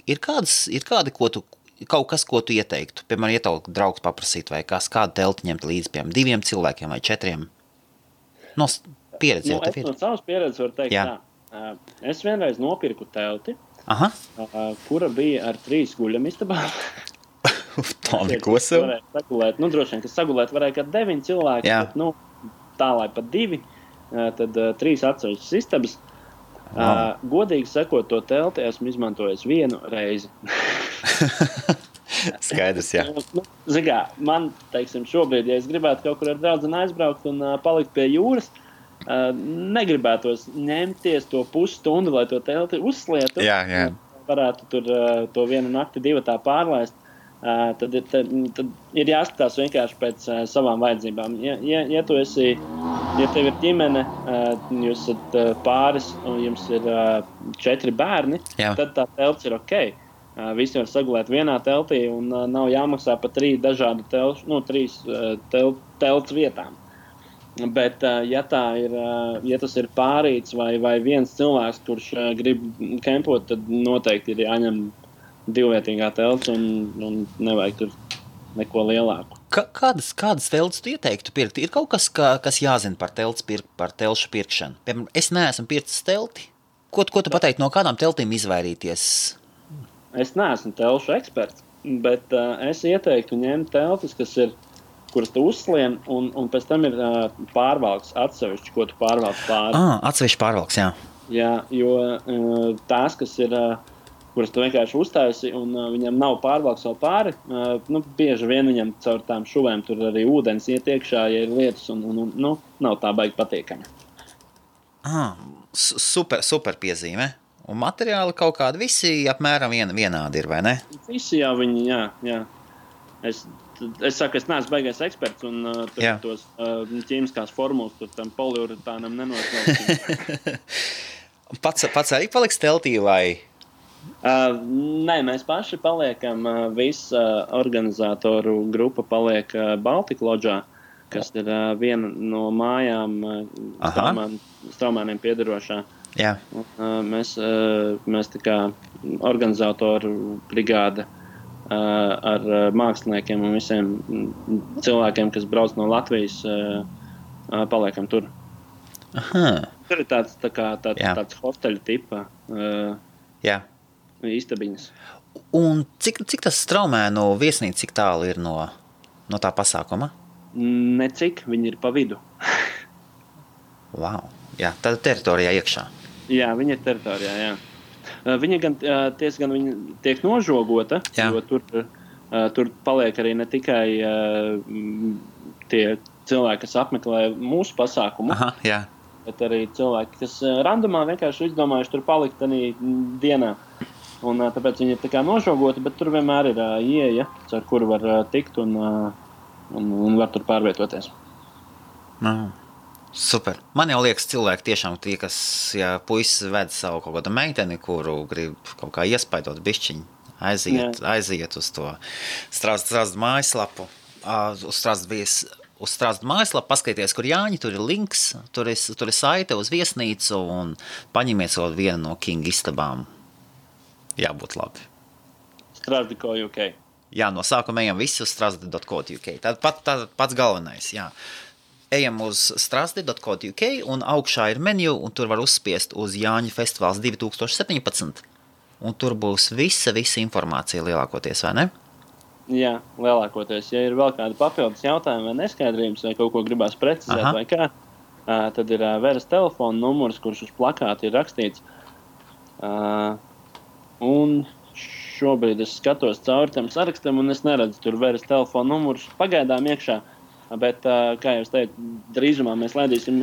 ir kādi, kaut kas, ko tu ieteiktu, piemēram, ieteiktu draugs paprasīt, vai kādu telti ņemt līdzi, piemēram, 2 cilvēkiem vai 4? No pieredzes jau tev ir. Es no savas pieredzes varu teikt tā. Es vienreiz nopirku telti, kura bija ar 3 guļamistabām. Tā neko sev. Droši vien, ka sagulēt varēja kā 9 cilvēki, bet, tā, lai pat 2, tad 3 atsevišķas istabas. Godīgi sakot, to telti esmu izmantojis 1 reizi. Skaidrs, jā. Zigā, man, teiksim, šobrīd, ja es gribētu kaut kur ar draudzeni aizbraukt un palikt pie jūras, negribētos ņemties to pusstundu, lai to telti uzslietu. Jā. Varētu tur to 1 nakti 2 tā pārlaist. Tad ir jāskatās vienkārši pēc savām vajadzībām. Ja tev ir ģimene, jūs esat pāris un jums ir 4 bērni, tad tā telts ir ok. Visi var sagulēt vienā teltī un nav jāmaksā pa 3 dažādu telts vietām. Bet, ja tas ir pārīts vai viens cilvēks, kurš grib kempot, tad noteikti ir jāņem 2-vietīgā telts un nevajag tur neko lielāku. Kādas telts tu ieteiktu pirkt? Ir kaut kas, kas jāzina par telšu pirkšanu? Piemēram, es neesmu pircis telti. Ko tu pateiktu, no kādām teltīm izvairīties? Es neesmu telšu eksperts, bet es ieteiktu ņemt teltis, kuras tu uzslien, un pēc tam ir pārvalks atsevišķi, ko tu pārvalks pāri. Atsevišķi pārvalks, jā. Jā, jo tās, kas ir... kuras tu vienkārši uztaisi, un viņam nav pārvalks vēl pāri, bieži vien viņam caur tām šuvēm tur arī ūdens iet iekšā, ja ir lietas, un nav tā baigi patīkami. Super piezīme. Un materiāli kaut kādi visi apmēram vienādi ir, vai ne? Visi jau viņi, jā. Es saku, es neesmu baigais eksperts, un tos ķīmiskās formulas tur tam poliuretānam nenoslēgsim. Pats arī paliks teltī, vai... Nē, mēs paši paliekam, visa organizatoru grupa paliek Baltika Lodžā, kas ir viena no mājām Straumēniem piederošā. Jā. Mēs tā kā organizatoru brigāde ar māksliniekiem un visiem cilvēkiem, kas brauc no Latvijas, paliekam tur. Tur ir tāds hosteļu tipa. Jā. Istabiņas. Un cik tas Straumēnu viesnīca, cik tālu ir no tā pasākuma? Necik, viņi ir pa vidu. Wow, jā, tāda teritorijā iekšā. Jā, viņa ir teritorijā, jā. Viņa gan tiek nožogota, jo tur paliek arī ne tikai tie cilvēki, kas apmeklē mūsu pasākumu, bet arī cilvēki, kas randumā vienkārši izdomājuši tur palikt arī dienā. Un tāpēc viņi ir tā kā nožogoti, bet tur vienmēr ir ieeja, ar kuru var tikt un var tur pārvietoties. Super. Man jau liekas cilvēki tiešām tie, kas, ja puisis ved savu kaut kādu meiteni, kuru grib kaut kā iespaidot bišķiņu, aiziet uz to Strazdu mājaslapu, uz Strazdu mājaslapu, paskaties, kur Jāņi, tur ir links, tur ir saite uz viesnīcu un paņemiet savu vienu no King istabām. Jābūt labi. Strazdi.co.uk. Jā, no sākuma ejam visi uz strazdi.co.uk. Tad pats galvenais, jā. Ejam uz strazdi.co.uk un augšā ir menu, un tur var uzspiest uz Jāņu festivāls 2017. Un tur būs visa informācija lielākoties, vai ne? Jā, lielākoties. Ja ir vēl kādi papildus jautājumi vai neskaidrības, vai kaut ko gribās precizēt vai kā, tad ir Veras telefona numurs, kurš uz plakāta ir rakstīts. Un šobrīd es skatos cauri tam sarakstam, un es neredzu tur Veras telefona numurus pagaidām iekšā. Bet, kā jau es teicu, drīzumā mēs laidīsim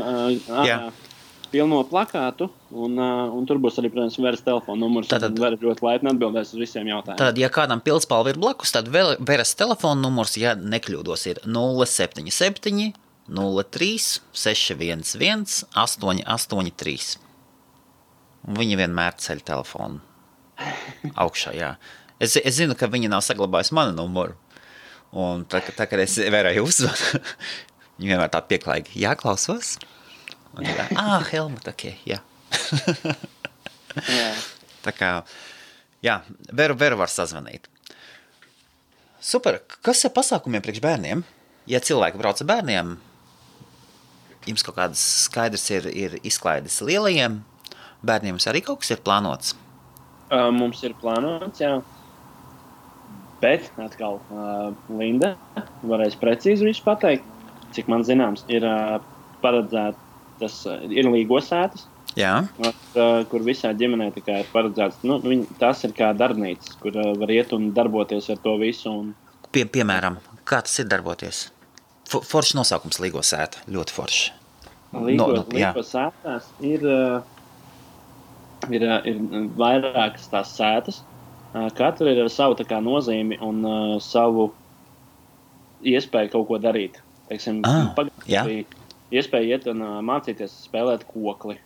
pilno plakātu, un tur būs arī, protams, Veras telefona numurs. Tad Vera ļoti laipni atbildēs uz visiem jautājumiem. Tad, ja kādam Pilspalva ir blakus, tad Veras telefona numurs, ja nekļūdos, ir 077 03 611 883. Viņi vienmēr ceļ telefonu augšā, jā. Es zinu, ka viņi nav saglabājusi manu numuru. Un tā, kad es Verai uzvanu, viņi vienmēr tā pieklājīgi, jāklausos. Un tā, Helmut, ok, jā. Tā kā, jā, Veru var sazvanīt. Super, kas ir pasākumiem priekš bērniem? Ja cilvēki brauc ar bērniem, jums kaut kāds skaidrs ir izklaides lielajiem, bērniem arī kaut kas ir plānots? Mums ir plānots, jā. Bet atkal Linda varēs precīzi visu pateikt. Cik man zināms, ir paredzētas, ir līgosētas, kur visā ģimenē tikai ir paredzēts. Tas ir kā darbnīcas, kur var iet un darboties ar to visu. Un... Piemēram, kā tas ir darboties? Foršs nosaukums līgosēta, ļoti forši. Līgosētās ir vairākas tās sētas. Katra ir ar savu tā kā nozīmi un savu iespēju kaut ko darīt. Teiksim, iespēja iet un mācīties spēlēt kokli.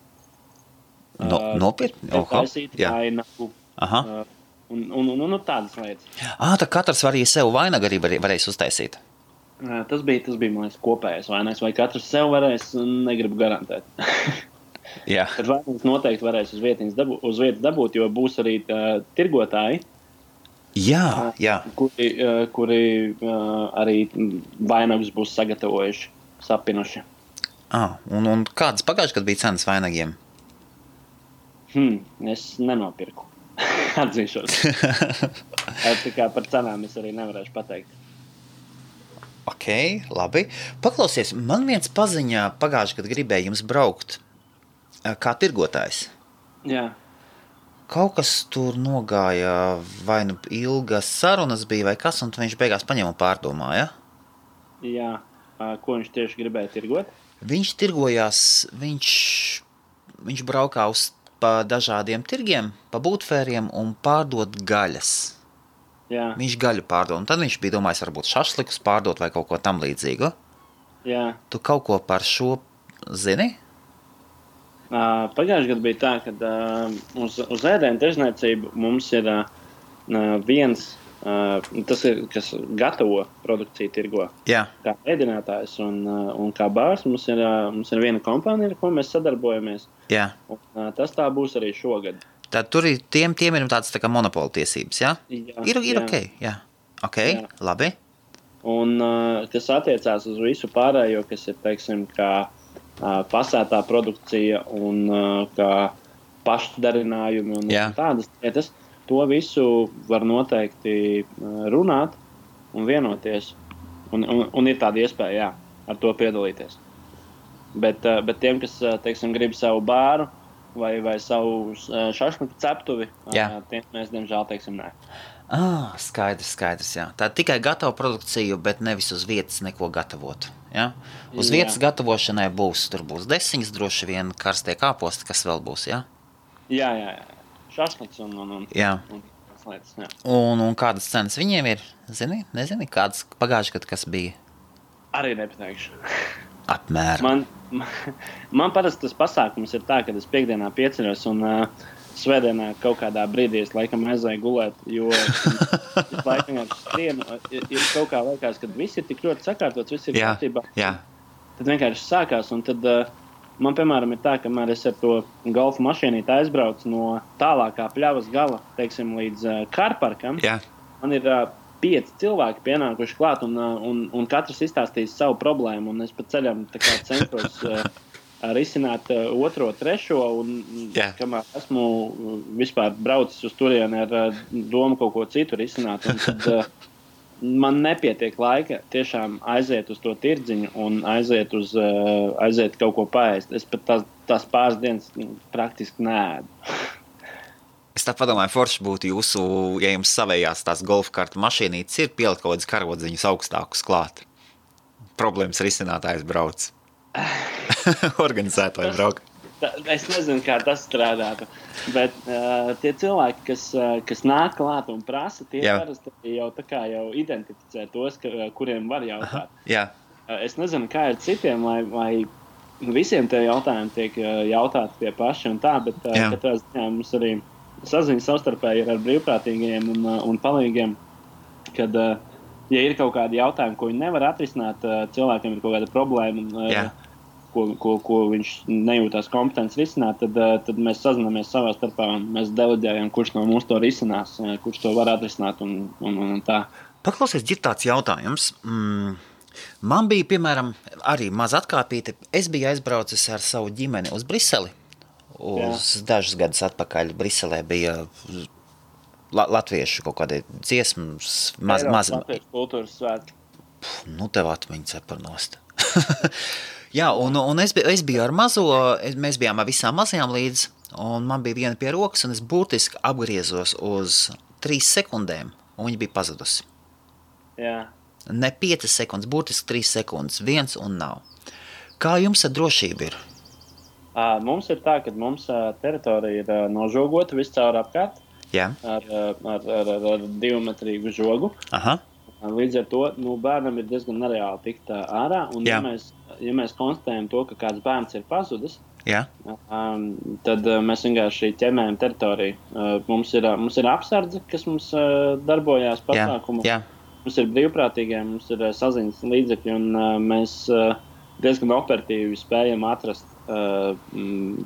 Nopietni? Taisīt vainagu. Un tādas lietas. Tā katrs var arī sev vainagu arī varēs uztaisīt. Tas bija man liekas, kopējais vainags. Vai katrs sev varēs, negribu garantēt. Jā. Tad vainags noteikti varēs uz vietas dabūt, jo būs arī tirgotāji. Jā. Kuri arī vainagus būs sagatavojuši, sapinuši. Un kādas pagājušajā gadā bija cenas vainagiem? Es nenopirku. Atzīšos. Tā kā par cenām es arī nevarēšu pateikt. Ok, labi. Paklausies, man viens paziņā pagājušajā gadā gribēja jums braukt kā tirgotājs. Jā. Kaut kas tur nogāja, vai nu ilgas sarunas bija, vai kas, un viņš beigās paņēma un pārdomāja? Jā. Ko viņš tieši gribēja tirgot? Viņš tirgojās, viņš braukā pa dažādiem tirgiem, pa būtfēriem un pārdot gaļas. Jā. Viņš gaļu pārdod, un tad viņš bija domājis varbūt šašlikus pārdot vai kaut ko tam līdzīgu. Jā. Tu kaut ko par šo zini? Pagājušajā gadā bija tā, ka uz ēdienu tirzniecību mums ir viens, tas ir, kas gatavo produkciju tirgo. Jā. Kā ēdinātājs un kā bārs mums ir viena kompānija, ar ko mēs sadarbojamies. Jā. Un tas tā būs arī šogad. Tad tur ir tiem ir tāds tā kā monopola tiesības, jā? Ir ok, jā. Ok, jā. Labi. Un kas attiecās uz visu pārējo, kas ir, teiksim, kā pasētā produkcija un kā pašdarinājumi un tādas lietas, to visu var noteikti runāt un vienoties. Un ir tāda iespēja, jā, ar to piedalīties. Bet tiem, kas, teiksim, grib savu bāru, vai savu šašliku ceptuvi, tiem mēs, diemžēl, teiksim, nē. Skaidrs, jā. Tā tikai gatava produkciju, bet nevis uz vietas neko gatavot, jā? Uz vietas gatavošanai tur būs desiņas, droši vien karstie kāposti, kas vēl būs, jā? Jā. Šašliks un lietas, jā. Un kādas cenas viņiem ir? Nezini, kādas pagājušajā gadā, kas bija? Arī nepateikšu. Apmēram. Man parasti tas pasākums ir tā, ka es piekdienā pieceļos un svētdienā kaut kādā brīdī es laikam aizēju gulēt, jo es laikam skrienu, ir kaut kā laikās, kad viss ir tik ļoti sakārtots, viss ir kārtībā. Jā. Tad vienkārši sākās, un tad man, piemēram, ir tā, kamēr es ar to golfa mašīnīti aizbraucu no tālākā pļavas gala, teiksim, līdz kārparkam, man ir 5 cilvēki pienākuši klāt, un katrs izstāstīs savu problēmu, un es pa ceļam tā kā centos risināt otro, trešo, un kamēr esmu vispār braucis uz turieni ar domu kaut ko citu risināt, un tad man nepietiek laika tiešām aiziet uz to tirdziņu un aiziet kaut ko paēst. Es pat tās pāris dienas praktiski neēdu. Es tā padomāju, forši būtu jūsu, ja jums savējās tās golfkarta mašīnītes ir pielikt kaut kādas karodziņas augstākus klāt. Problēmas risinātājs brauc. Organizētāji brauc. Es nezinu, kā tas strādātu, bet tie cilvēki, kas nāk klāt un prasa, tie parasti jau identificē tos, kuriem var jautāt. Jā. Es nezinu, kā ir citiem, vai visiem tie jautājumi tiek jautāti pie paši un tā, bet katrā ziņā mums arī saziņa savstarpēji ir ar brīvprātīgiem un palīgiem, kad, ja ir kaut kādi jautājumi, ko viņi nevar atrisināt, cilvēkiem ir kaut kāda problēma, ko viņš nejūtās kompetents risināt, tad mēs sazināmies savā starpā un mēs deleģējam, kurš no mums to risinās, kurš to var atrisināt un tā. Paklausies, ir tāds jautājums. Man bija, piemēram, arī maz atkāpīte. Es biju aizbraucis ar savu ģimeni uz Briseli. Dažus gadus atpakaļ Briselē bija latviešu kaut kādi dziesmas. Latviešu kultūras svētki. Nu, tev atmiņas nost. Jā, un es biju ar mazo, mēs bijām ar visām mazajām līdz, un man bija viena pie rokas, un es burtiski apgriezos uz 3 sekundēm, un viņa bija pazudusi. Jā. Ne 5 sekundes, burtiski 3 sekundes, viens un nav. Kā jums ar drošību ir? Mums ir tā, ka mums teritorija ir nožogota viscaur apkārt. Jā. Ar 2-metrīgu žogu. Aha. Līdz ar to bērnam ir diezgan nereāli tikt ārā. Un ja mēs konstatējam to, ka kāds bērns ir pazudis, tad mēs vienkārši ķemējam teritoriju. Mums ir apsardze, kas mums darbojās pasākumu. Jā. Mums ir brīvprātīgie, mums ir saziņas līdzekļi, un mēs diezgan operatīvi spējam atrast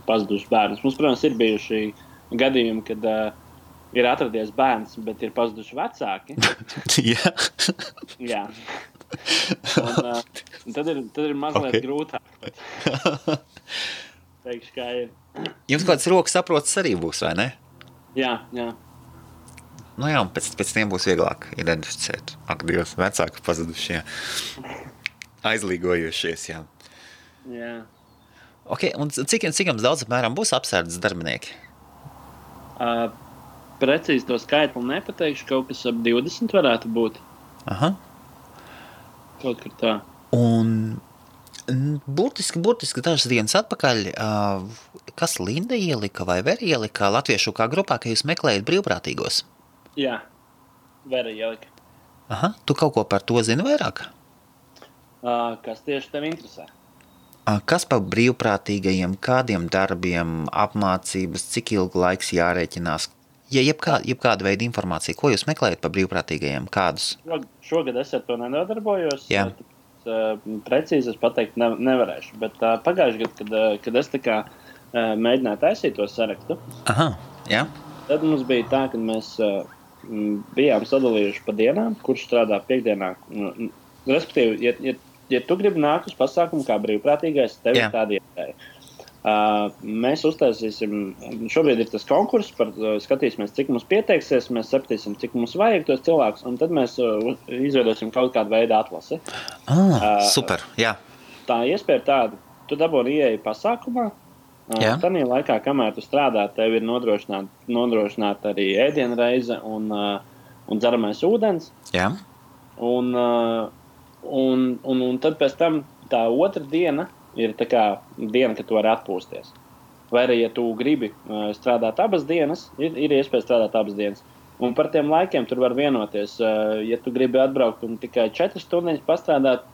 pazudušus bērnus. Mums, protams, ir bijuši gadījumi, kad ir atradies bērns, bet ir pazuduši vecāki. Jā. Un tad ir mazliet grūtāk. Teikšu, kā ir. Jums kāds rokas saprotas arī būs, vai ne? Jā. Nu jā, un pēc tiem būs vieglāk identificēt. Ak, Dievs, vecāki pazudušie. Aizlīgojušies, jā. Jā. Ok, un cik jums daudz apmēram būs apsardzes darbinieki? Precīzi to skaitli nepateikšu, kaut kas ap 20 varētu būt. Aha. Kaut kur tā. Un burtiski dažas dienas atpakaļ, kas Linda ielika vai Vera ielika latviešu kā grupā, ka jūs meklējat brīvprātīgos? Jā, Vera ielika. Aha, tu kaut ko par to zini vairāk? Kas tieši tev interesē? Kas par brīvprātīgajiem, kādiem darbiem, apmācības, cik ilgu laiks jārēķinās? Ja jebkāda veida informācija, ko jūs meklējat par brīvprātīgajiem, kādus? Šogad es ar to nedarbojos. Jā. Precīzi es pateikt nevarēšu, bet pagājuši gadu, kad es tā kā mēģināju taisīt to sarakstu, aha, jā. Tad mums bija tā, ka mēs bijām sadalījuši pa dienām, kurš strādā piekdienā. Respektīvi, ja tu gribi nākt uz pasākumu kā brīvprātīgais, tev ir tāda iespēja. Mēs uztaisīsim, šobrīd ir tas konkurss, skatīsimies, cik mums pieteiksies, mēs sapratīsim, cik mums vajag tos cilvēkus, un tad mēs izveidosim kaut kādu veidu atlasi. Super, jā. Tā iespēja ir tāda, tu dabūni ieeja pasākumā, tanī laikā, kamēr tu strādā, tev ir nodrošināta arī ēdienreize un dzeramais ūdens. Jā. Un tad pēc tam tā otra diena ir tā kā diena, kad tu vari atpūsties. Vai arī, ja tu gribi strādāt abas dienas, ir iespēja strādāt abas dienas. Un par tiem laikiem tur var vienoties. Ja tu gribi atbraukt un tikai 4 stundas pastrādāt,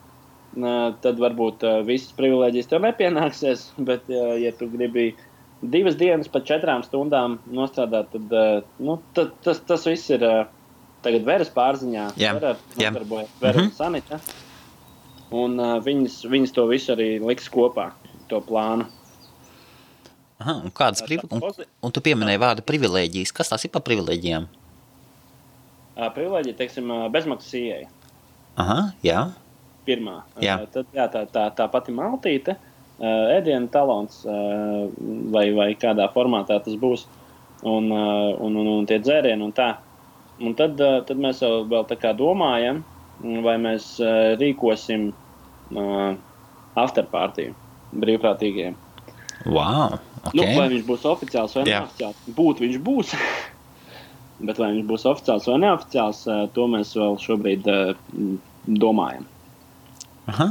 tad varbūt visas privilēģijas tev nepienāksies, bet ja tu gribi 2 dienas pa 4 stundām nostrādāt, tad tas viss ir tagad Veras pārziņā. Vera un Sanita. Un viņas to visu arī liks kopā, to plānu. Aha, un kādas un tu pieminēji vārdu privilēģijas. Kas tās ir par privilēģijām? Privilēģija, teiksim, bezmaksas ieeja. Aha, jā. Pirmā. Jā. Tad tā pati maltīte, ēdienu talons vai kādā formātā tas būs, un tie dzērieni un tā. Un tad mēs vēl tā kā domājam, vai mēs rīkosim afterpartiju brīvprātīgiem. Wow, Okay. Vai viņš būs oficiāls vai neoficiāls? Būt viņš būs. Bet vai viņš būs oficiāls vai neoficiāls, to mēs vēl šobrīd domājam. Aha.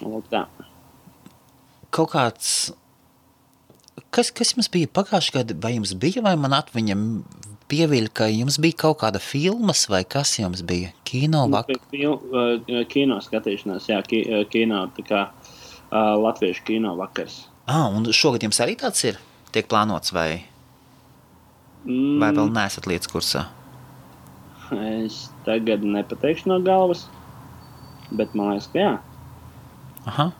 Lūk tā. Kaut kāds... Kas jums bija pagājušajā gadu? Vai jums bija, vai man atmiņa pieviļ, ka jums bija kaut kāda filmas, vai kas jums bija? Kino vakar? Kino skatīšanās, jā, kino, tā kā latviešu kino vakars. Un šogad jums arī tāds ir? Tiek plānots, vai vēl neesat lietas kursā? Es tagad nepateikšu no galvas, bet man liekas, ka jā. Aha.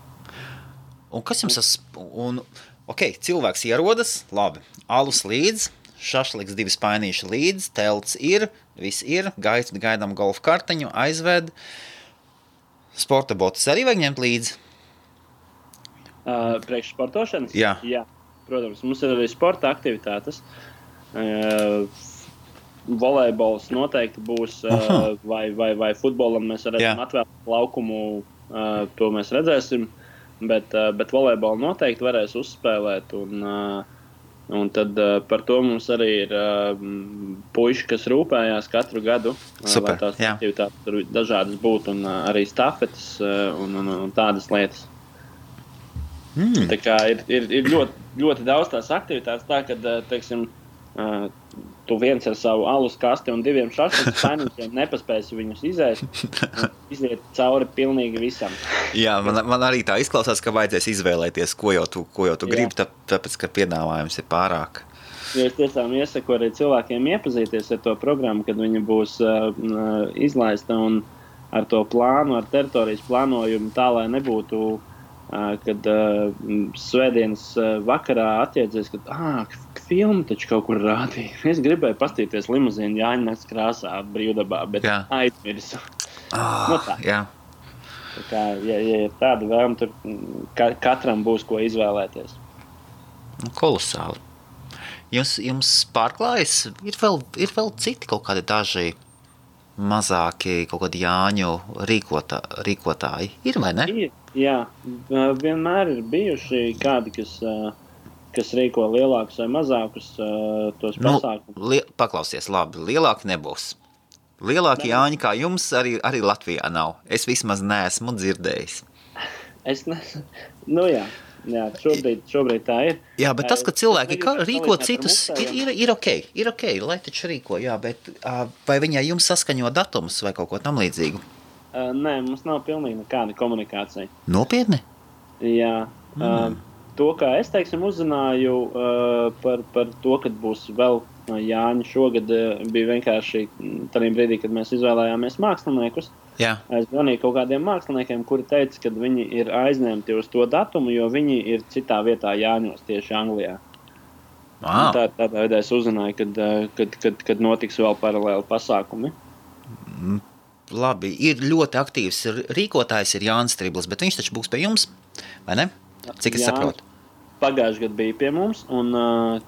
Un kas jums cilvēks ierodas, labi, alus līdz, šašliks 2 spainīši līdz, telts ir, viss ir, gaidām golfa karteņu, aizved, sporta botus arī vajag ņemt līdzi? Priekš sportošanas? Jā. Jā, protams, mums ir arī sporta aktivitātes. Volejbols noteikti būs, vai futbolam mēs redzam atvēlēt laukumu, to mēs redzēsim, bet volejbolu noteikti varēs uzspēlēt, un tad par to mums arī ir puiši, kas rūpējās katru gadu, Super, lai tās aktivitātes dažādas būtu, un arī stafetes un tādas lietas. Tā kā ir ļoti, ļoti daudz tās aktivitātes, tā, kad, teiksim, tu viens ar savu alus kasti un 2 šašliku spainīšiem nepaspēsi viņus iziet cauri pilnīgi visam. Jā, man arī tā izklausās, ka vajadzēs izvēlēties, ko jau tu gribi, tāpēc, ka piedāvājums ir pārāk. Jo es tiešām iesaku arī cilvēkiem iepazīties ar to programmu, kad viņa būs izlaista un ar to plānu, ar teritorijas plānojumu tā, lai nebūtu kad svētdienas vakarā atjēdzies, ka filmu taču kaut kur rādīja. Es gribēju pastīties limuzīnu Jāņas krāsā brīvdabā, bet aizmirsu. Tā. Jā. Tā kā, ja ir tāda vēlme, tur katram būs ko izvēlēties. Kolosāli. Jums pārklājas? Ir vēl citi kaut kādi daži mazāki kaut kādi Jāņu rīkotāji? Ir vai ne? Jā, vienmēr ir bijuši kādi, kas rīko lielākus vai mazākus tos pasākumus. Paklausies, labi, lielāki nebūs. Lielāki Jāņi kā jums arī Latvijā nav. Es vismaz neesmu dzirdējis. Jā, šobrīd tā ir. Jā, bet tas, ka cilvēki rīko citus, ir ok, lai taču rīko, jā, bet vai viņai jums saskaņo datumus vai kaut ko tam līdzīgu? Nē, mums nav pilnīgi nekāda komunikācija. Nopietni? Jā. To, kā es, teiksim, uzzināju par to, kad būs vēl Jāņi šogad, bija vienkārši tādā brīdī, kad mēs izvēlējāmies māksliniekus. Jā. Es zvanīju kaut kādiem māksliniekiem, kuri teica, ka viņi ir aizņemti uz to datumu, jo viņi ir citā vietā Jāņos, tieši Anglijā. Wow. Tādā veidā es uzzināju, kad notiks vēl paralēli pasākumi. Labi, ir ļoti aktīvs rīkotājs, ir Jānis Striblis, bet viņš taču būs pie jums, vai ne? Cik es saprotu? Pagājušajā gadā bija pie mums, un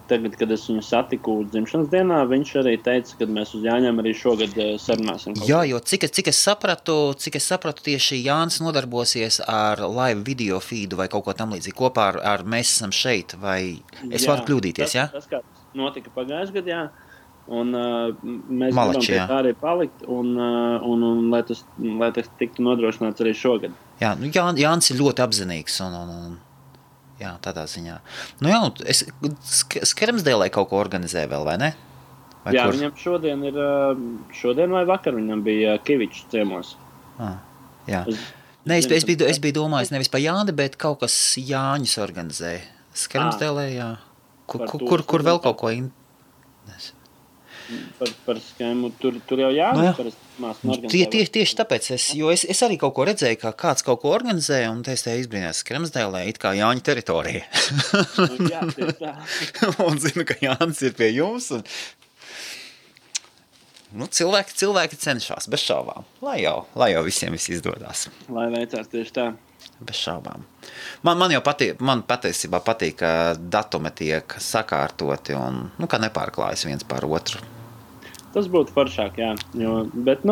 tagad, kad es viņu satiku dzimšanas dienā, viņš arī teica, ka mēs uz Jāņiem arī šogad sarunāsim. Jā, jo cik es sapratu, tieši Jānis nodarbosies ar live video feedu vai kaut ko tam līdzīgi kopā ar Mēs esam šeit, vai es varu kļūdīties, jā? Tas kā notika pagājušajā gadā, jā. Un mēs gribam pie tā arī palikt, un lai tas tiktu nodrošināts arī šogad. Jā, Jānis ir ļoti apzinīgs, un jā, tādā ziņā. Nu jā, Skermsdēlē kaut ko organizē vēl, vai ne? Vai jā, kur? Viņam šodien vai vakar viņam bija Kivičs ciemos. Jā. Es biju domājis nevis pa Jāni, bet kaut kas Jāņus organizē. Skermsdēlē, jā. Kur vēl kaut ko Par skēmu, tur jau Jānis Tieši tāpēc, es arī kaut ko redzēju, ka kāds kaut ko organizē, un es te izbrīnās Skermsdēlē, it kā Jāņa teritorija. Jā, tieši tā. Un zinu, ka Jānis ir pie jums, un cilvēki cenšas, bez šaubām, lai jau visiem viss izdodās. Lai veicās tieši tā. Bez šaubām. Man patiesībā patīk, ka datumi tiek sakārtoti un, ka nepārklājas viens par otru. Tas būtu foršāk, jā. Bet,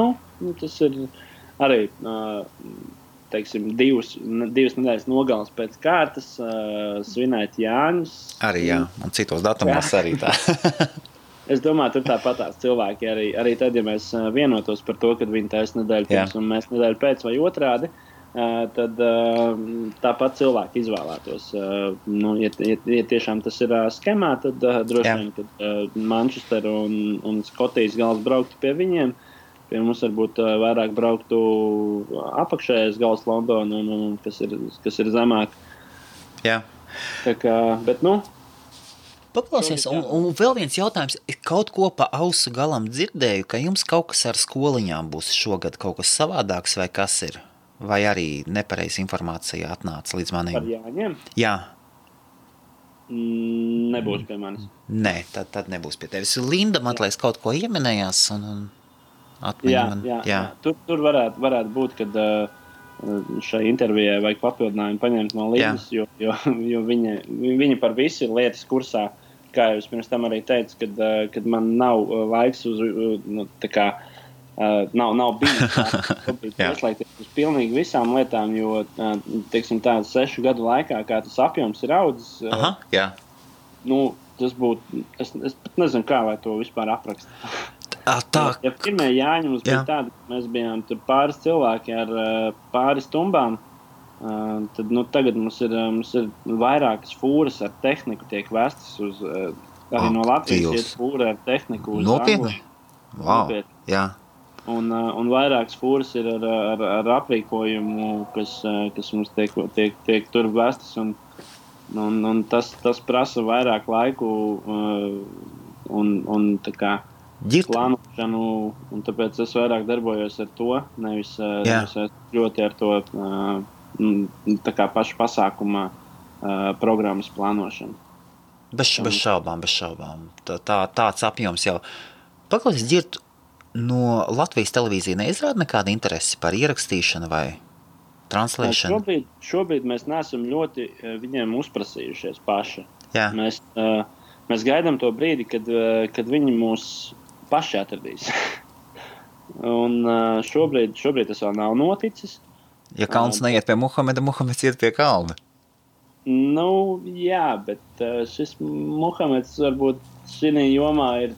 tas ir arī teiksim, divas nedēļas nogales pēc kārtas svinēt Jāņus. Arī, jā, un citos datumos arī tā. Es domāju, tur tāpatās cilvēki arī tad, ja mēs vienotos par to, kad viņi taisa nedēļu pirms un mēs nedēļu pēc vai otrādi, tad tāpat cilvēki izvēlētos. Ja tiešām tas ir skemā, tad droši vien, kad Manchester un Skotijas gals brauktu pie viņiem, pie mums varbūt vairāk brauktu apakšējais gals Londona, kas ir zemāk. Jā. Tā kā, bet Paklausies, un vēl viens jautājums. Kaut ko pa ausu galam dzirdēju, ka jums kaut kas ar skoliņām būs šogad kaut kas savādāks, vai kas ir? Vai arī nepareiza informācija atnāca līdz maniem? Par Jāņiem? Jā. Nebūs pie manis. Nē, tad nebūs pie tevis. Linda, man liekas, kaut ko ieminējās un atmiņa man. Jā. Tur varētu būt, kad šai intervijai vajag papildinājumu paņemt no Lindas, jo viņa par visu ir lietas kursā, kā jau es pirms tam arī teicu, kad man nav laiks uz, tā kā, nav bijis ieslēgties uz pilnīgi visām lietām, jo, teiksim, tādu 6 gadu laikā, kā tas apjoms ir audzis, tas būtu, es pat nezinu, kā lai to vispār aprakst. Ja pirmie Jāņi mums bija tādi, ka mēs bijām tur pāris cilvēki ar pāris tumbām, tad tagad mums ir vairākas fūras ar tehniku tiek vestas uz, arī no Latvijas iet fūra ar tehniku uz Angliju. Wow. Jā. Un vairākas fūras ir ar aprīkojumu, kas mums tiek tur vestas, un tas prasa vairāk laiku un tā kā plānošanu, un tāpēc es vairāk darbojos ar to, nevis ļoti ar to tā kā pašu pasākuma programmas plānošanu. Bez šaubām. Tāds apjoms jau. Paklausies, Ģirt, no Latvijas televīzija neizrāda nekāda interesi par ierakstīšanu vai translēšanu? Šobrīd mēs neesam ļoti viņiem uzprasījušies paši. Jā. Mēs gaidām to brīdi, kad viņi mūs paši atradīs. Un šobrīd tas vēl nav noticis. Ja kalns neiet pie Muhameda, Muhameds iet pie kalna. Jā, bet šis Muhameds varbūt šī jomā ir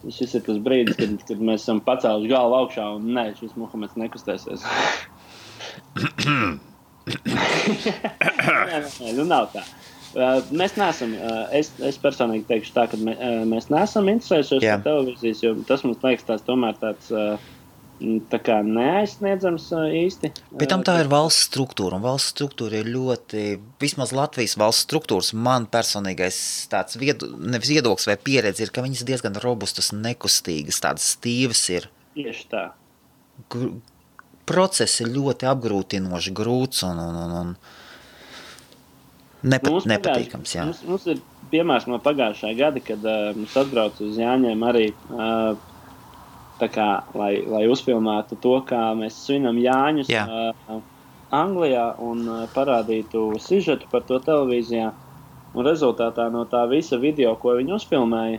šis ir tas brīdis, kad mēs esam pacēluši galvu augšā un šis Muhameds nekustēsies. Nē, nav tā. Mēs neesam, es personīgi teikšu tā, ka mēs neesam interesējušies par televīzijas, jo tas mums liekas tomēr tāds tā kā neaizsniedzams īsti. Bet tam tā ir valsts struktūra, un valsts struktūra ir ļoti, vismaz Latvijas valsts struktūras, man personīgais tāds nevis viedoklis vai pieredze ir, ka viņas diezgan robustas, nekustīgas, tādas stīvas ir. Tieši tā. Process ir ļoti apgrūtinoši, grūts un nepatīkams, jā. Mums ir piemērs no pagājušā gada, kad mums atbrauc uz Jāņiem arī tā kā, lai uzfilmētu to, kā mēs svinam Jāņus Anglijā un parādītu sižetu par to televīzijā. Un rezultātā no tā visa video, ko viņi uzfilmēja,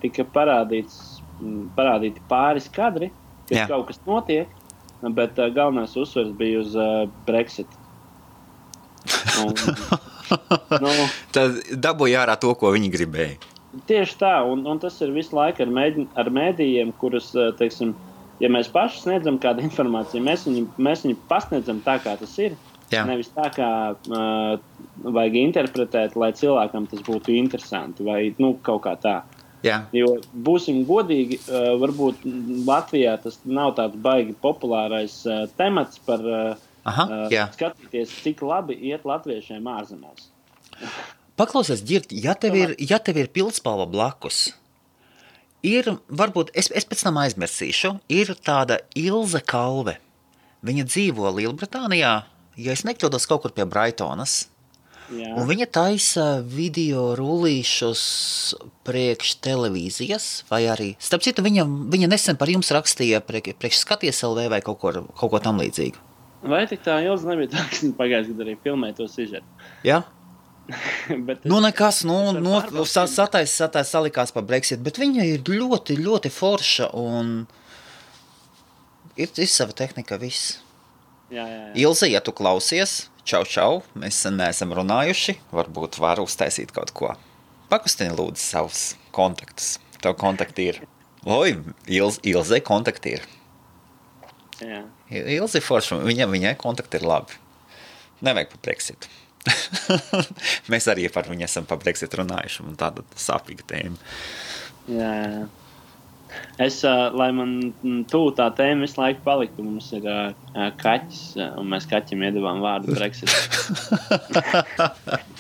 tika parādīti pāris kadri, kad kaut kas notiek, bet galvenais uzsvers bija uz Brexit. Tad dabūja ārā to, ko viņi gribēja. Tieši tā, un tas ir visu laiku ar mēdījiem, kurus, teiksim, ja mēs paši sniedzam kādu informāciju, mēs viņu pasniedzam tā, kā tas ir. Nevis tā, kā vajag interpretēt, lai cilvēkam tas būtu interesanti vai kaut kā tā. Jo būsim godīgi, varbūt Latvijā tas nav tāds baigi populārais temats par skatīties, cik labi iet latviešiem ārzemēs. Paklausies, Ģirt, ja tev ir pildspalva blakus, ir, varbūt, es pēc tam aizmirsīšu, ir tāda Ilze Kalve. Viņa dzīvo Lielbritānijā, ja es nekļūdos kaut kur pie Brightonas. Un viņa taisa video rullīšus priekš televīzijas, vai arī, starp citu, viņa nesen par jums rakstīja priekš Skaties LV vai kaut ko tam līdzīgu. Vai tik tā Ilze nebija tā, ka pagājušajā gadā arī filmēja to sižetu? Jā? Nekas, satais salikās par Brexit, bet viņa ir ļoti, ļoti forša un ir sava tehnika viss. Jā. Ilze, ja tu klausies, čau, mēs neesam runājuši, varbūt var uztaisīt kaut ko. Pakustini lūdzu savus kontaktus. Tev kontakti ir. Oi, Ilze kontakti ir. Jā. Ilze forši, viņai kontakti ir labi. Nevajag par Brexitu. Mēs arī par viņu esam par Brexitu runājuši, un tāda sāpīga tēma. Jā. Es, lai man tā tēma visu laiku paliktu, mums ir kaķis, un mēs kaķim iedavām vārdu Brexit.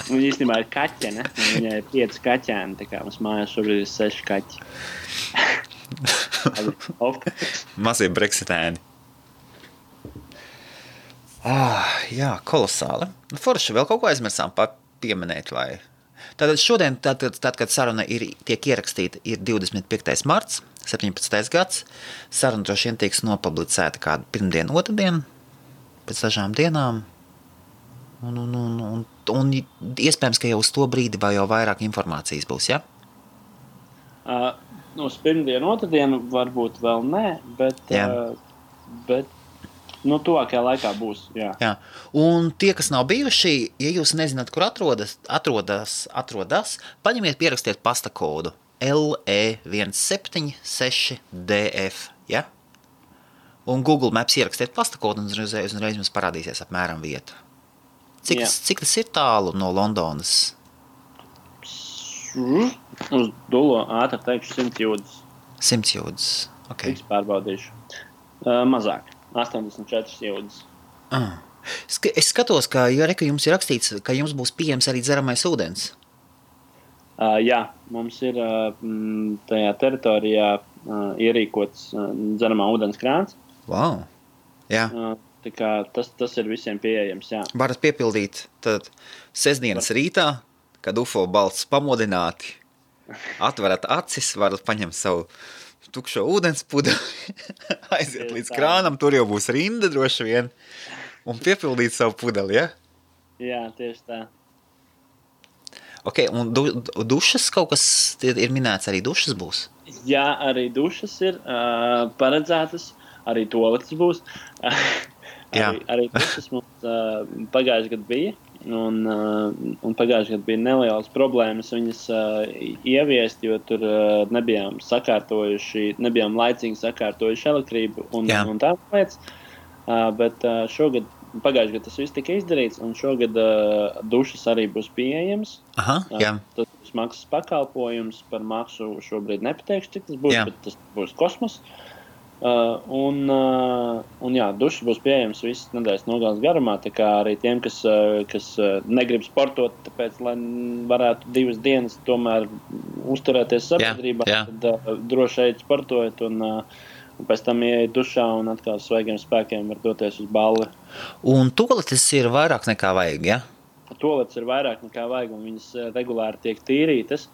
Viņa īstenībā ir kaķene, un viņai ir 5 kaķēni, tā kā mums mājās šobrīd ir 6 kaķi. Mazie Brexitēni. Jā, kolosāli. Forši, vēl kaut ko aizmirsām pieminēt, vai... Tātad šodien, kad saruna tiek ierakstīta, ir 25. marts, 17. gads. Saruna droši vien tiks nopublicēta kādu pirmdienu, otrdien, pēc dažām dienām. Un iespējams, ka jau uz to brīdi vai jau vairāk informācijas būs, ja? Uz pirmdienu, otrdienu varbūt vēl nē, bet tuvākajā laikā būs, jā. Un tie, kas nav bijuši, ja jūs nezināt, kur atrodas, paņemiet, pierakstiet pasta kodu LE176DF, ja? Un Google Maps ierakstiet pasta kodu un uzreiz jums parādīsies apmēram vieta. Cik tas ir tālu no Londonas? Uz Dulo ātri teikšu 100 jūdzes. 100 jūdzes, ok. Tiks pārbaudīšu. Mazāk. 84 jūdzes. Es skatos, ka jums ir rakstīts, ka jums būs pieejams arī dzeramais ūdens. Jā, mums ir tajā teritorijā ierīkots dzeramā ūdens krāns. Wow, jā. Tā kā tas ir visiem pieejams, jā. Varat piepildīt tad sestdienas rītā, kad UFO balsts pamodināti, atverat acis, varat paņemt savu tukšo ūdens pudeli, aiziet līdz krānam, tur jau būs rinda droši vien, un piepildīt savu pudeli, ja? Jā, tieši tā. Ok, un dušas kaut kas ir minēts, arī dušas būs? Jā, arī dušas ir paredzētas, arī toaletes būs. Arī dušas mums pagājuši gadu bija. Un pagājušajā gadā bija nelielas problēmas viņas ieviest, jo tur nebijām laicīgi sakārtojuši elektrību un tādas lietas. Bet šogad, pagājušajā gadā tas viss tika izdarīts, un šogad dušas arī būs pieejams. Tas būs maksas pakalpojums, par maksu šobrīd nepateikšu, cik tas būs, bet tas būs kosmos. Dušas būs pieejams visas nedēļas nogales garumā, tā kā arī tiem, kas negrib sportot, tāpēc, lai varētu 2 dienas tomēr uzturēties sabiedrībā, tad droši eit sportojot un pēc tam ieiet dušā un atkal svaigiem spēkiem var doties uz balli. Un toaletes ir vairāk nekā vajag, ja? Toaletes ir vairāk nekā vajag, un viņas regulāri tiek tīrītas,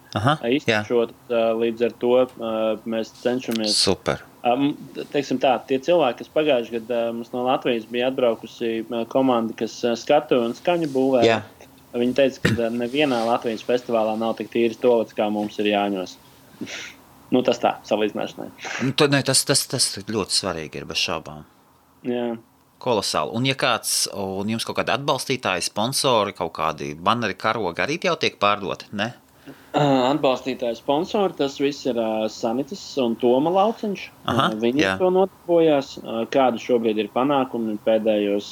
iztušot, līdz ar to mēs cenšamies... Super. Teiksim tā, tie cilvēki, kas pagājuši gadā mums no Latvijas bija atbraukusi komanda, kas skatu un skaņu būvē, viņi teica, ka nevienā Latvijas festivālā nav tik tīras toaletes, kā mums ir Jāņos. Tas tā, salīdzināšanai. Tas ļoti svarīgi ir bez šaubām. Jā. Kolosāli. Un ja kāds, un jums kaut kādi atbalstītāji, sponsori, kaut kādi banneri, karogi arī jau tiek pārdoti, ne? Atbalstītāji sponsori, tas viss ir Sanitas un Toma Lauciņš. Viņi to notarbojās. Kādi šobrīd ir panākumi pēdējos,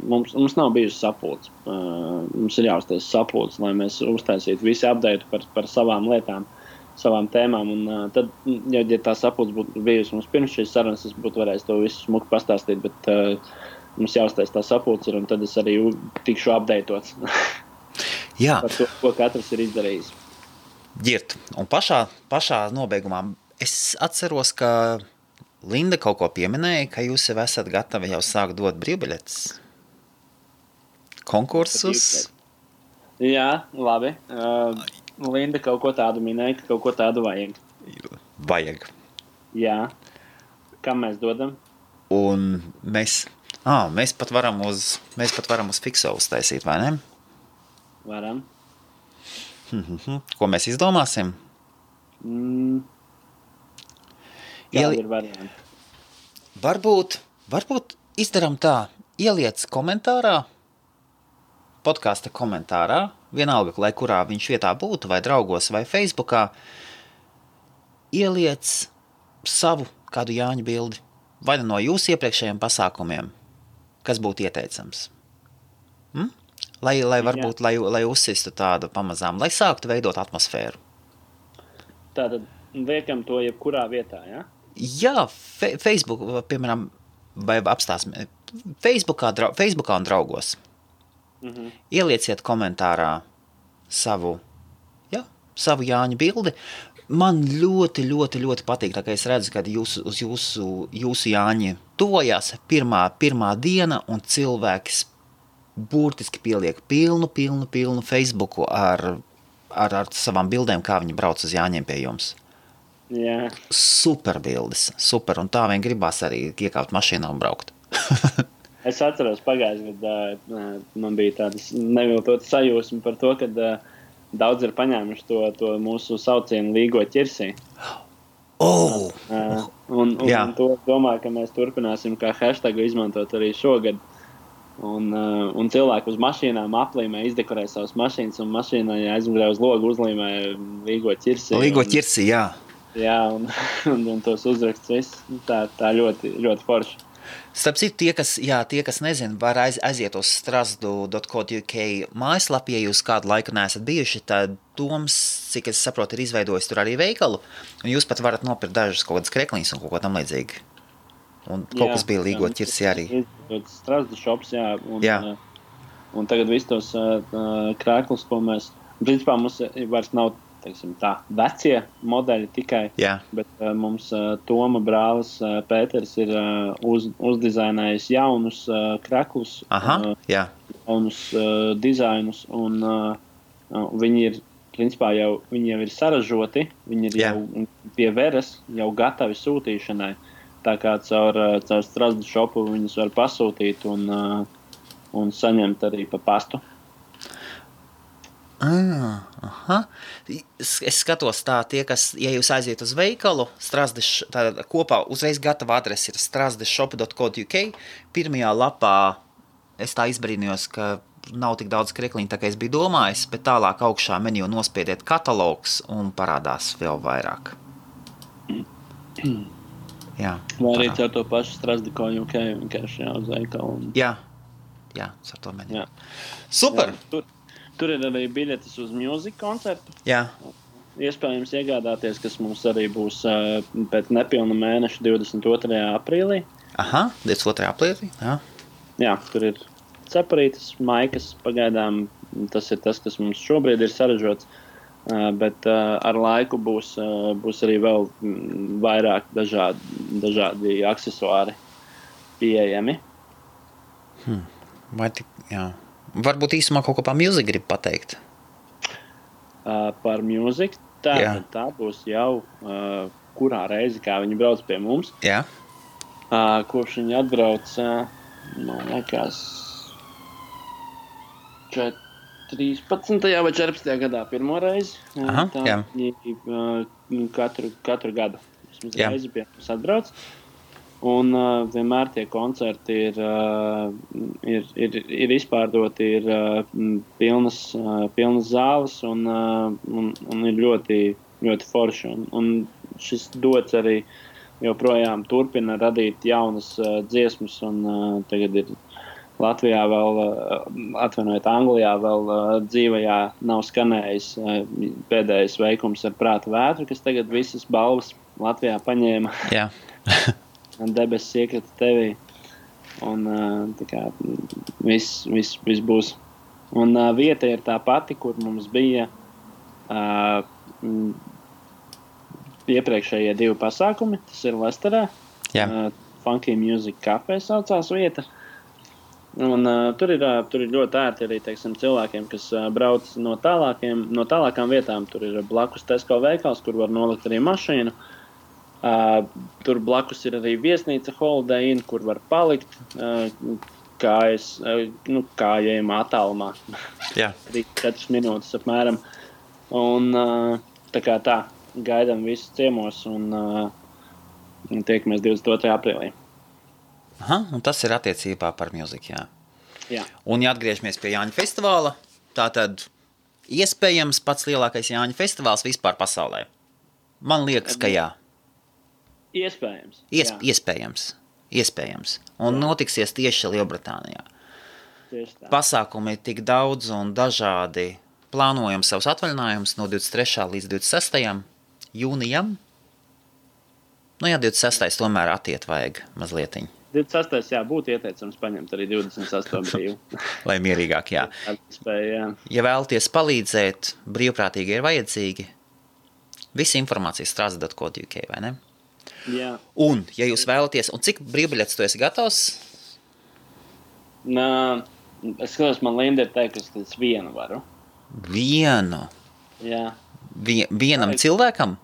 mums nav bijusi sapulcs. Mums ir jāuztais sapulcs, lai mēs uztaisītu visi update par savām lietām, savām tēmām. Un tad, ja tā sapulcs būtu bijusi mums pirms šīs sarunas, es būtu varējis to visu smuku pastāstīt, bet mums jāuztais tā sapulcs ir, un tad es arī tikšu updatēts par to, ko katrs ir izdarījis. Ģirt, un pašā nobeigumā es atceros, ka Linda kaut ko pieminēja, ka jūs jau esat gatavi jau sākt dot brīvbiļetes konkursus. Jā, labi. Linda kaut ko tādu minēja, ka kaut ko tādu vajag. Vajag. Jā. Kam mēs dodam? Un mēs pat varam uz Fikso uztaisīt, vai ne? Varam. Ko mēs izdomāsim? Kādi ir varianti? Varbūt izdaram tā. ieliec komentārā, podkāsta komentārā, vienalga, lai kurā viņš vietā būtu, vai draugos, vai Facebookā, ieliec savu kādu Jāņa bildi, vai no jūsu iepriekšējiem pasākumiem, kas būtu ieteicams. Lai varbūt, lai uzsistu tādu pamazām, lai sāktu veidot atmosfēru. Tātad liekam to jebkurā vietā, ja? Jā, Facebook, piemēram, vai apstāsim, Facebookā un draugos. Ielieciet komentārā savu Jāņa bildi. Man ļoti, ļoti, ļoti patīk, tā kā es redzu, kad uz jūsu Jāņi tuvojās pirmā diena, un cilvēks burtiski pieliek pilnu Facebooku ar savām bildēm, kā viņi brauc uz Jāņiem pie jums. Jā. Super bildes, super, un tā vien gribās arī iekāpt mašīnā un braukt. Es atceros pagājušajā gadā, man bija tādas neviltotas sajūsma par to, ka daudz ir paņēmuši to mūsu saucienu līgo ķirsī. Un to domāju, ka mēs turpināsim kā hashtagu izmantot arī šogad. Un cilvēki uz mašīnām aplīmē, izdekorē savas mašīnas, un mašīnā aizmugurē uz logu uzlīmē līgo ķirsī. Līgo ķirsī, jā. Jā, un tos uzraksts viss. Tā ļoti, ļoti forši. Starp citu, tie, kas nezin, var aiziet uz strazdu.co.uk mājaslapu, ja jūs kādu laiku neesat bijuši, tad Toms, cik es saprotu, ir izveidojis tur arī veikalu, un jūs pat varat nopirkt dažas kaut kādas krekliņas un kaut ko tam līdzīgi. Un kaut kas bija līgo ķirsī arī. Strazdu shops, un tagad visus tos krēklus, ko mēs, principā mums vairs nav, teiksim tā, vecie modeļi tikai, bet mums Toma brālis Pēters ir uzdizainējis jaunus kreklus, jaunus dizainus, un viņi ir, principā viņi jau ir saražoti, viņi ir jau pie veres, jau gatavi sūtīšanai, tā kā caur Strazdu shopu viņus var pasūtīt un saņemt arī pa pastu. Es skatos tā, tie, kas, ja jūs aiziet uz veikalu, kopā uzreiz gatava adrese ir strazdeshop.co.uk. Pirmajā lapā es tā izbrīnījos, ka nav tik daudz krekliņu, tā kā es biju domājis, bet tālāk augšā meniju nospiediet katalogs un parādās vēl vairāk. Jā. Vai arī ar to pašu Strazdu.co.uk vienkārši uz veikalu. Jā, ar to meniju. Super! Jā, tur ir arī biļetes uz mūziku koncertu. Jā. Iespējams iegādāties, kas mums arī būs pēc nepilna mēneša 22. aprīlī. 22. aprīlī, jā. Jā, tur ir ceparītes, maikas, pagaidām tas ir tas, kas mums šobrīd ir saražots, bet ar laiku būs arī vēl vairāk dažādi aksesuāri pieejami. Vai tik, jā. Varbūt īsumā kaut ko par mūziku grib pateikt. Par mūziku? Tā būs jau kurā reizi, kā viņi brauc pie mums. Jā. Kopš viņi atbrauc, man liekas, 13. vai 14. gadā pirmo reizi. Katru gadu. Vismaz reizi pie mums atbrauc. Un vienmēr tie koncerti ir izpārdoti, ir pilnas zāles un ir ļoti, ļoti forši. Un šis dots arī joprojām turpina radīt jaunas dziesmas, un tagad ir Latvijā vēl, Anglijā vēl dzīvajā nav skanējis pēdējais veikums ar Prāta vētru, kas tagad visas balvas Latvijā paņēma. Jā. Debesis iekrita tevī, un tā kā viss būs. Un vieta ir tā pati, kur mums bija iepriekšējie 2 pasākumi. Tas ir Lesterā. Funky Music Cafe saucās vieta. Un tur ir ļoti ērti arī, teiksim, cilvēkiem, kas brauc no tālākām vietām. Tur ir blakus Tesco veikals, kur var nolikt arī mašīnu. Tur blakus ir arī viesnīca Holiday Inn, kur var palikt kājējumā attālumā. 3-4 minūtes apmēram. Un tā gaidām visus ciemos un tiekamies 22. aprīlī. Aha, un tas ir attiecībā par mūziku, jā. Jā. Un, ja atgriežamies pie Jāņa festivāla, tātad iespējams pats lielākais Jāņa festivāls vispār pasaulē. Man liekas, ka jā. Iespējams. Iespējams. Un notiksies tieši Lielbritānijā. Tieši tā. Pasākumi ir tik daudz un dažādi. Plānojam savus atvaļinājumus no 23. līdz 26. jūnijam. Nu jā, 26. tomēr attiet vajag mazlietiņ. 26. būtu ieteicams paņemt arī 28. brīvu. Lai mierīgāk, jā. Jā. Ja vēlaties palīdzēt, brīvprātīgi ir vajadzīgi. Visa informācija strāzda.co.uk, vai ne? Jā. Un, ja jūs vēlaties, un cik brīvbiļetes tu esi gatavs? Es skatos, man Linda ir teikusi, ka es vienu varu. Vienu? Jā. Vienam cilvēkam?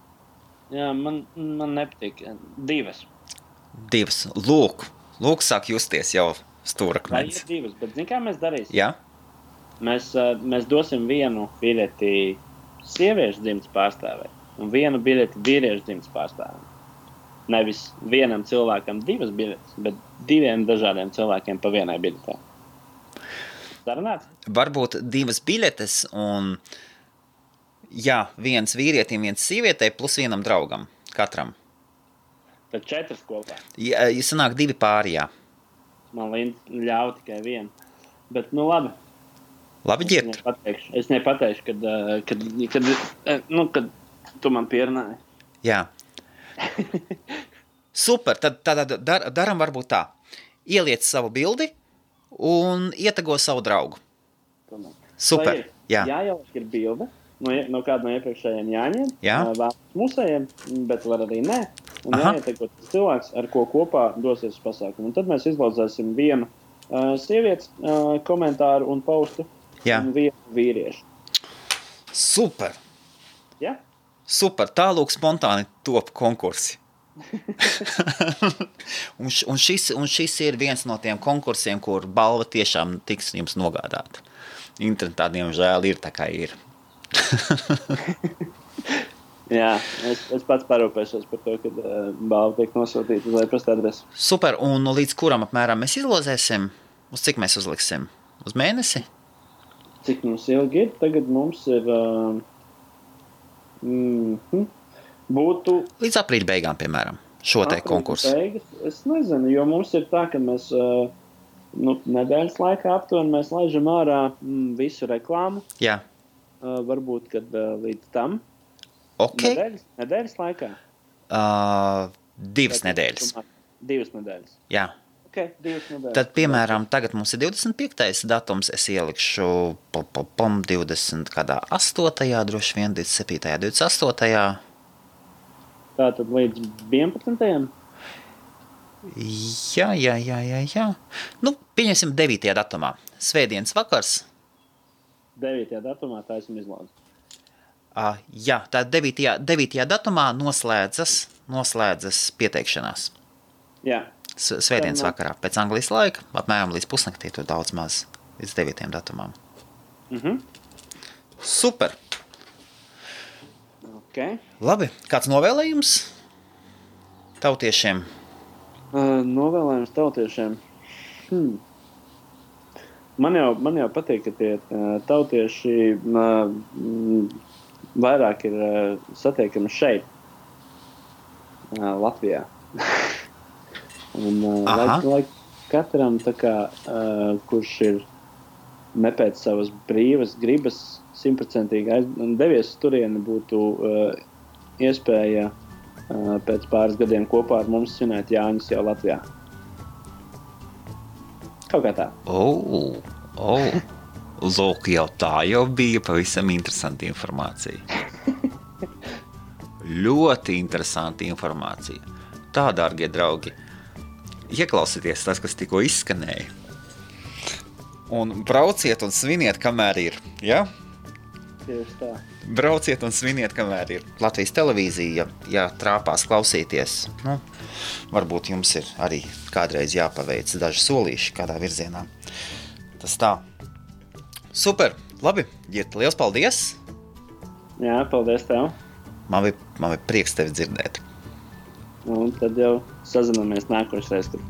Jā, man nepatīk. Divas. Lūk, sāk justies jau stūrakmenis. Vai ir divas, bet zini, kā mēs darīsim? Jā? Mēs dosim vienu biļeti sieviešu dzimtas pārstāvē un vienu biļeti vīriešu dzimtas pārstāvē. Nevis vienam cilvēkam divas biļetes, bet diviem dažādiem cilvēkiem pa vienai biļetē. Sarunāts? Varbūt divas biļetes un, jā, viens vīrietim, viens sievietei plus vienam draugam, katram. Tad 4 kopā. Ja sanāk 2 pāri, jā. Man ļauj tikai vienu. Bet, nu labi. Labi, ģirt. Es nepateikšu, kad tu man pierunāji. Jā. Super, tad daram varbūt tā. Ieliec savu bildi un ietago savu draugu. Super, jā. Jāieliek ir bilde no kāda no iepriekšējiem Jāņiem. Jā. Mūsējiem, bet var arī nē. Un jāietago cilvēks, ar ko kopā dosies uz pasākumu. Un tad mēs izlaudzēsim vienu sievietes komentāru un postu. Jā. Un vienu vīriešu. Super. Jā? Super, tālūk spontāni top konkursi. un šis ir viens no tiem konkursiem, kur balva tiešām tiks jums nogādāta. Internetā, diemžēl, ir tā kā ir. Jā, es pats parūpēšos par to, kad balva tiek nosūtīta uz e-pasta adresi. Super, un līdz kuram apmēram mēs izlozēsim? Uz cik mēs uzliksim? Uz mēnesi? Cik mums ilgi ir? Tagad mums ir... būtu... Līdz aprīļa beigām, piemēram, šo te konkursu. Beigas, es nezinu, jo mums ir tā, ka mēs nedēļas laikā aptuveni mēs laižam ārā visu reklāmu. Jā. Varbūt, kad līdz tam. Ok. Nedēļas laikā? 2 nedēļas. 2 nedēļas. Jā. Ok, 2 nedēļas. Tad, piemēram, tagad mums ir 25. datums, es ielikšu 20 kādā 8. droši vien, 27. 28. Tātad līdz 11. Jā. Nu, pieņemsim 9. datumā. Svētdienas vakars. 9. datumā tā esmu izlaudz. Jā, tā 9. datumā noslēdzas pieteikšanās. Jā. Svētdienas vakarā, pēc Anglijas laika, apmēram līdz pusnaktī, tur daudz maz, līdz 9. datumām. Super! Okay. Labi, kāds novēlējums tautiešiem? Novēlējums tautiešiem? Man jau patīk, ka tie tautieši vairāk ir satiekami šeit, Latvijā. Un lai katram, tā kā, kurš ir ne pēc savas brīvas gribas 100% devies turieni, būtu iespēja pēc pāris gadiem kopā ar mums svinēt Jāņus jau Latvijā. Kaut kā tā. Lūk, jau tā jau bija pavisam interesanta informācija. Ļoti interesanta informācija. Tā, dārgie draugi, ieklausieties tas, kas tikko izskanēja. Un brauciet un sviniet, kamēr ir, ja? Tieši tā. Brauciet un sviniet, kamēr ir. Latvijas televīzija, ja trāpās klausīties, nu, varbūt jums ir arī kādreiz jāpaveic daži solīši kādā virzienā. Tas tā. Super, labi, Girta, liels paldies! Jā, paldies tev! Man bija prieks tevi dzirdēt. Un tad jau sazināmies nākošais, kad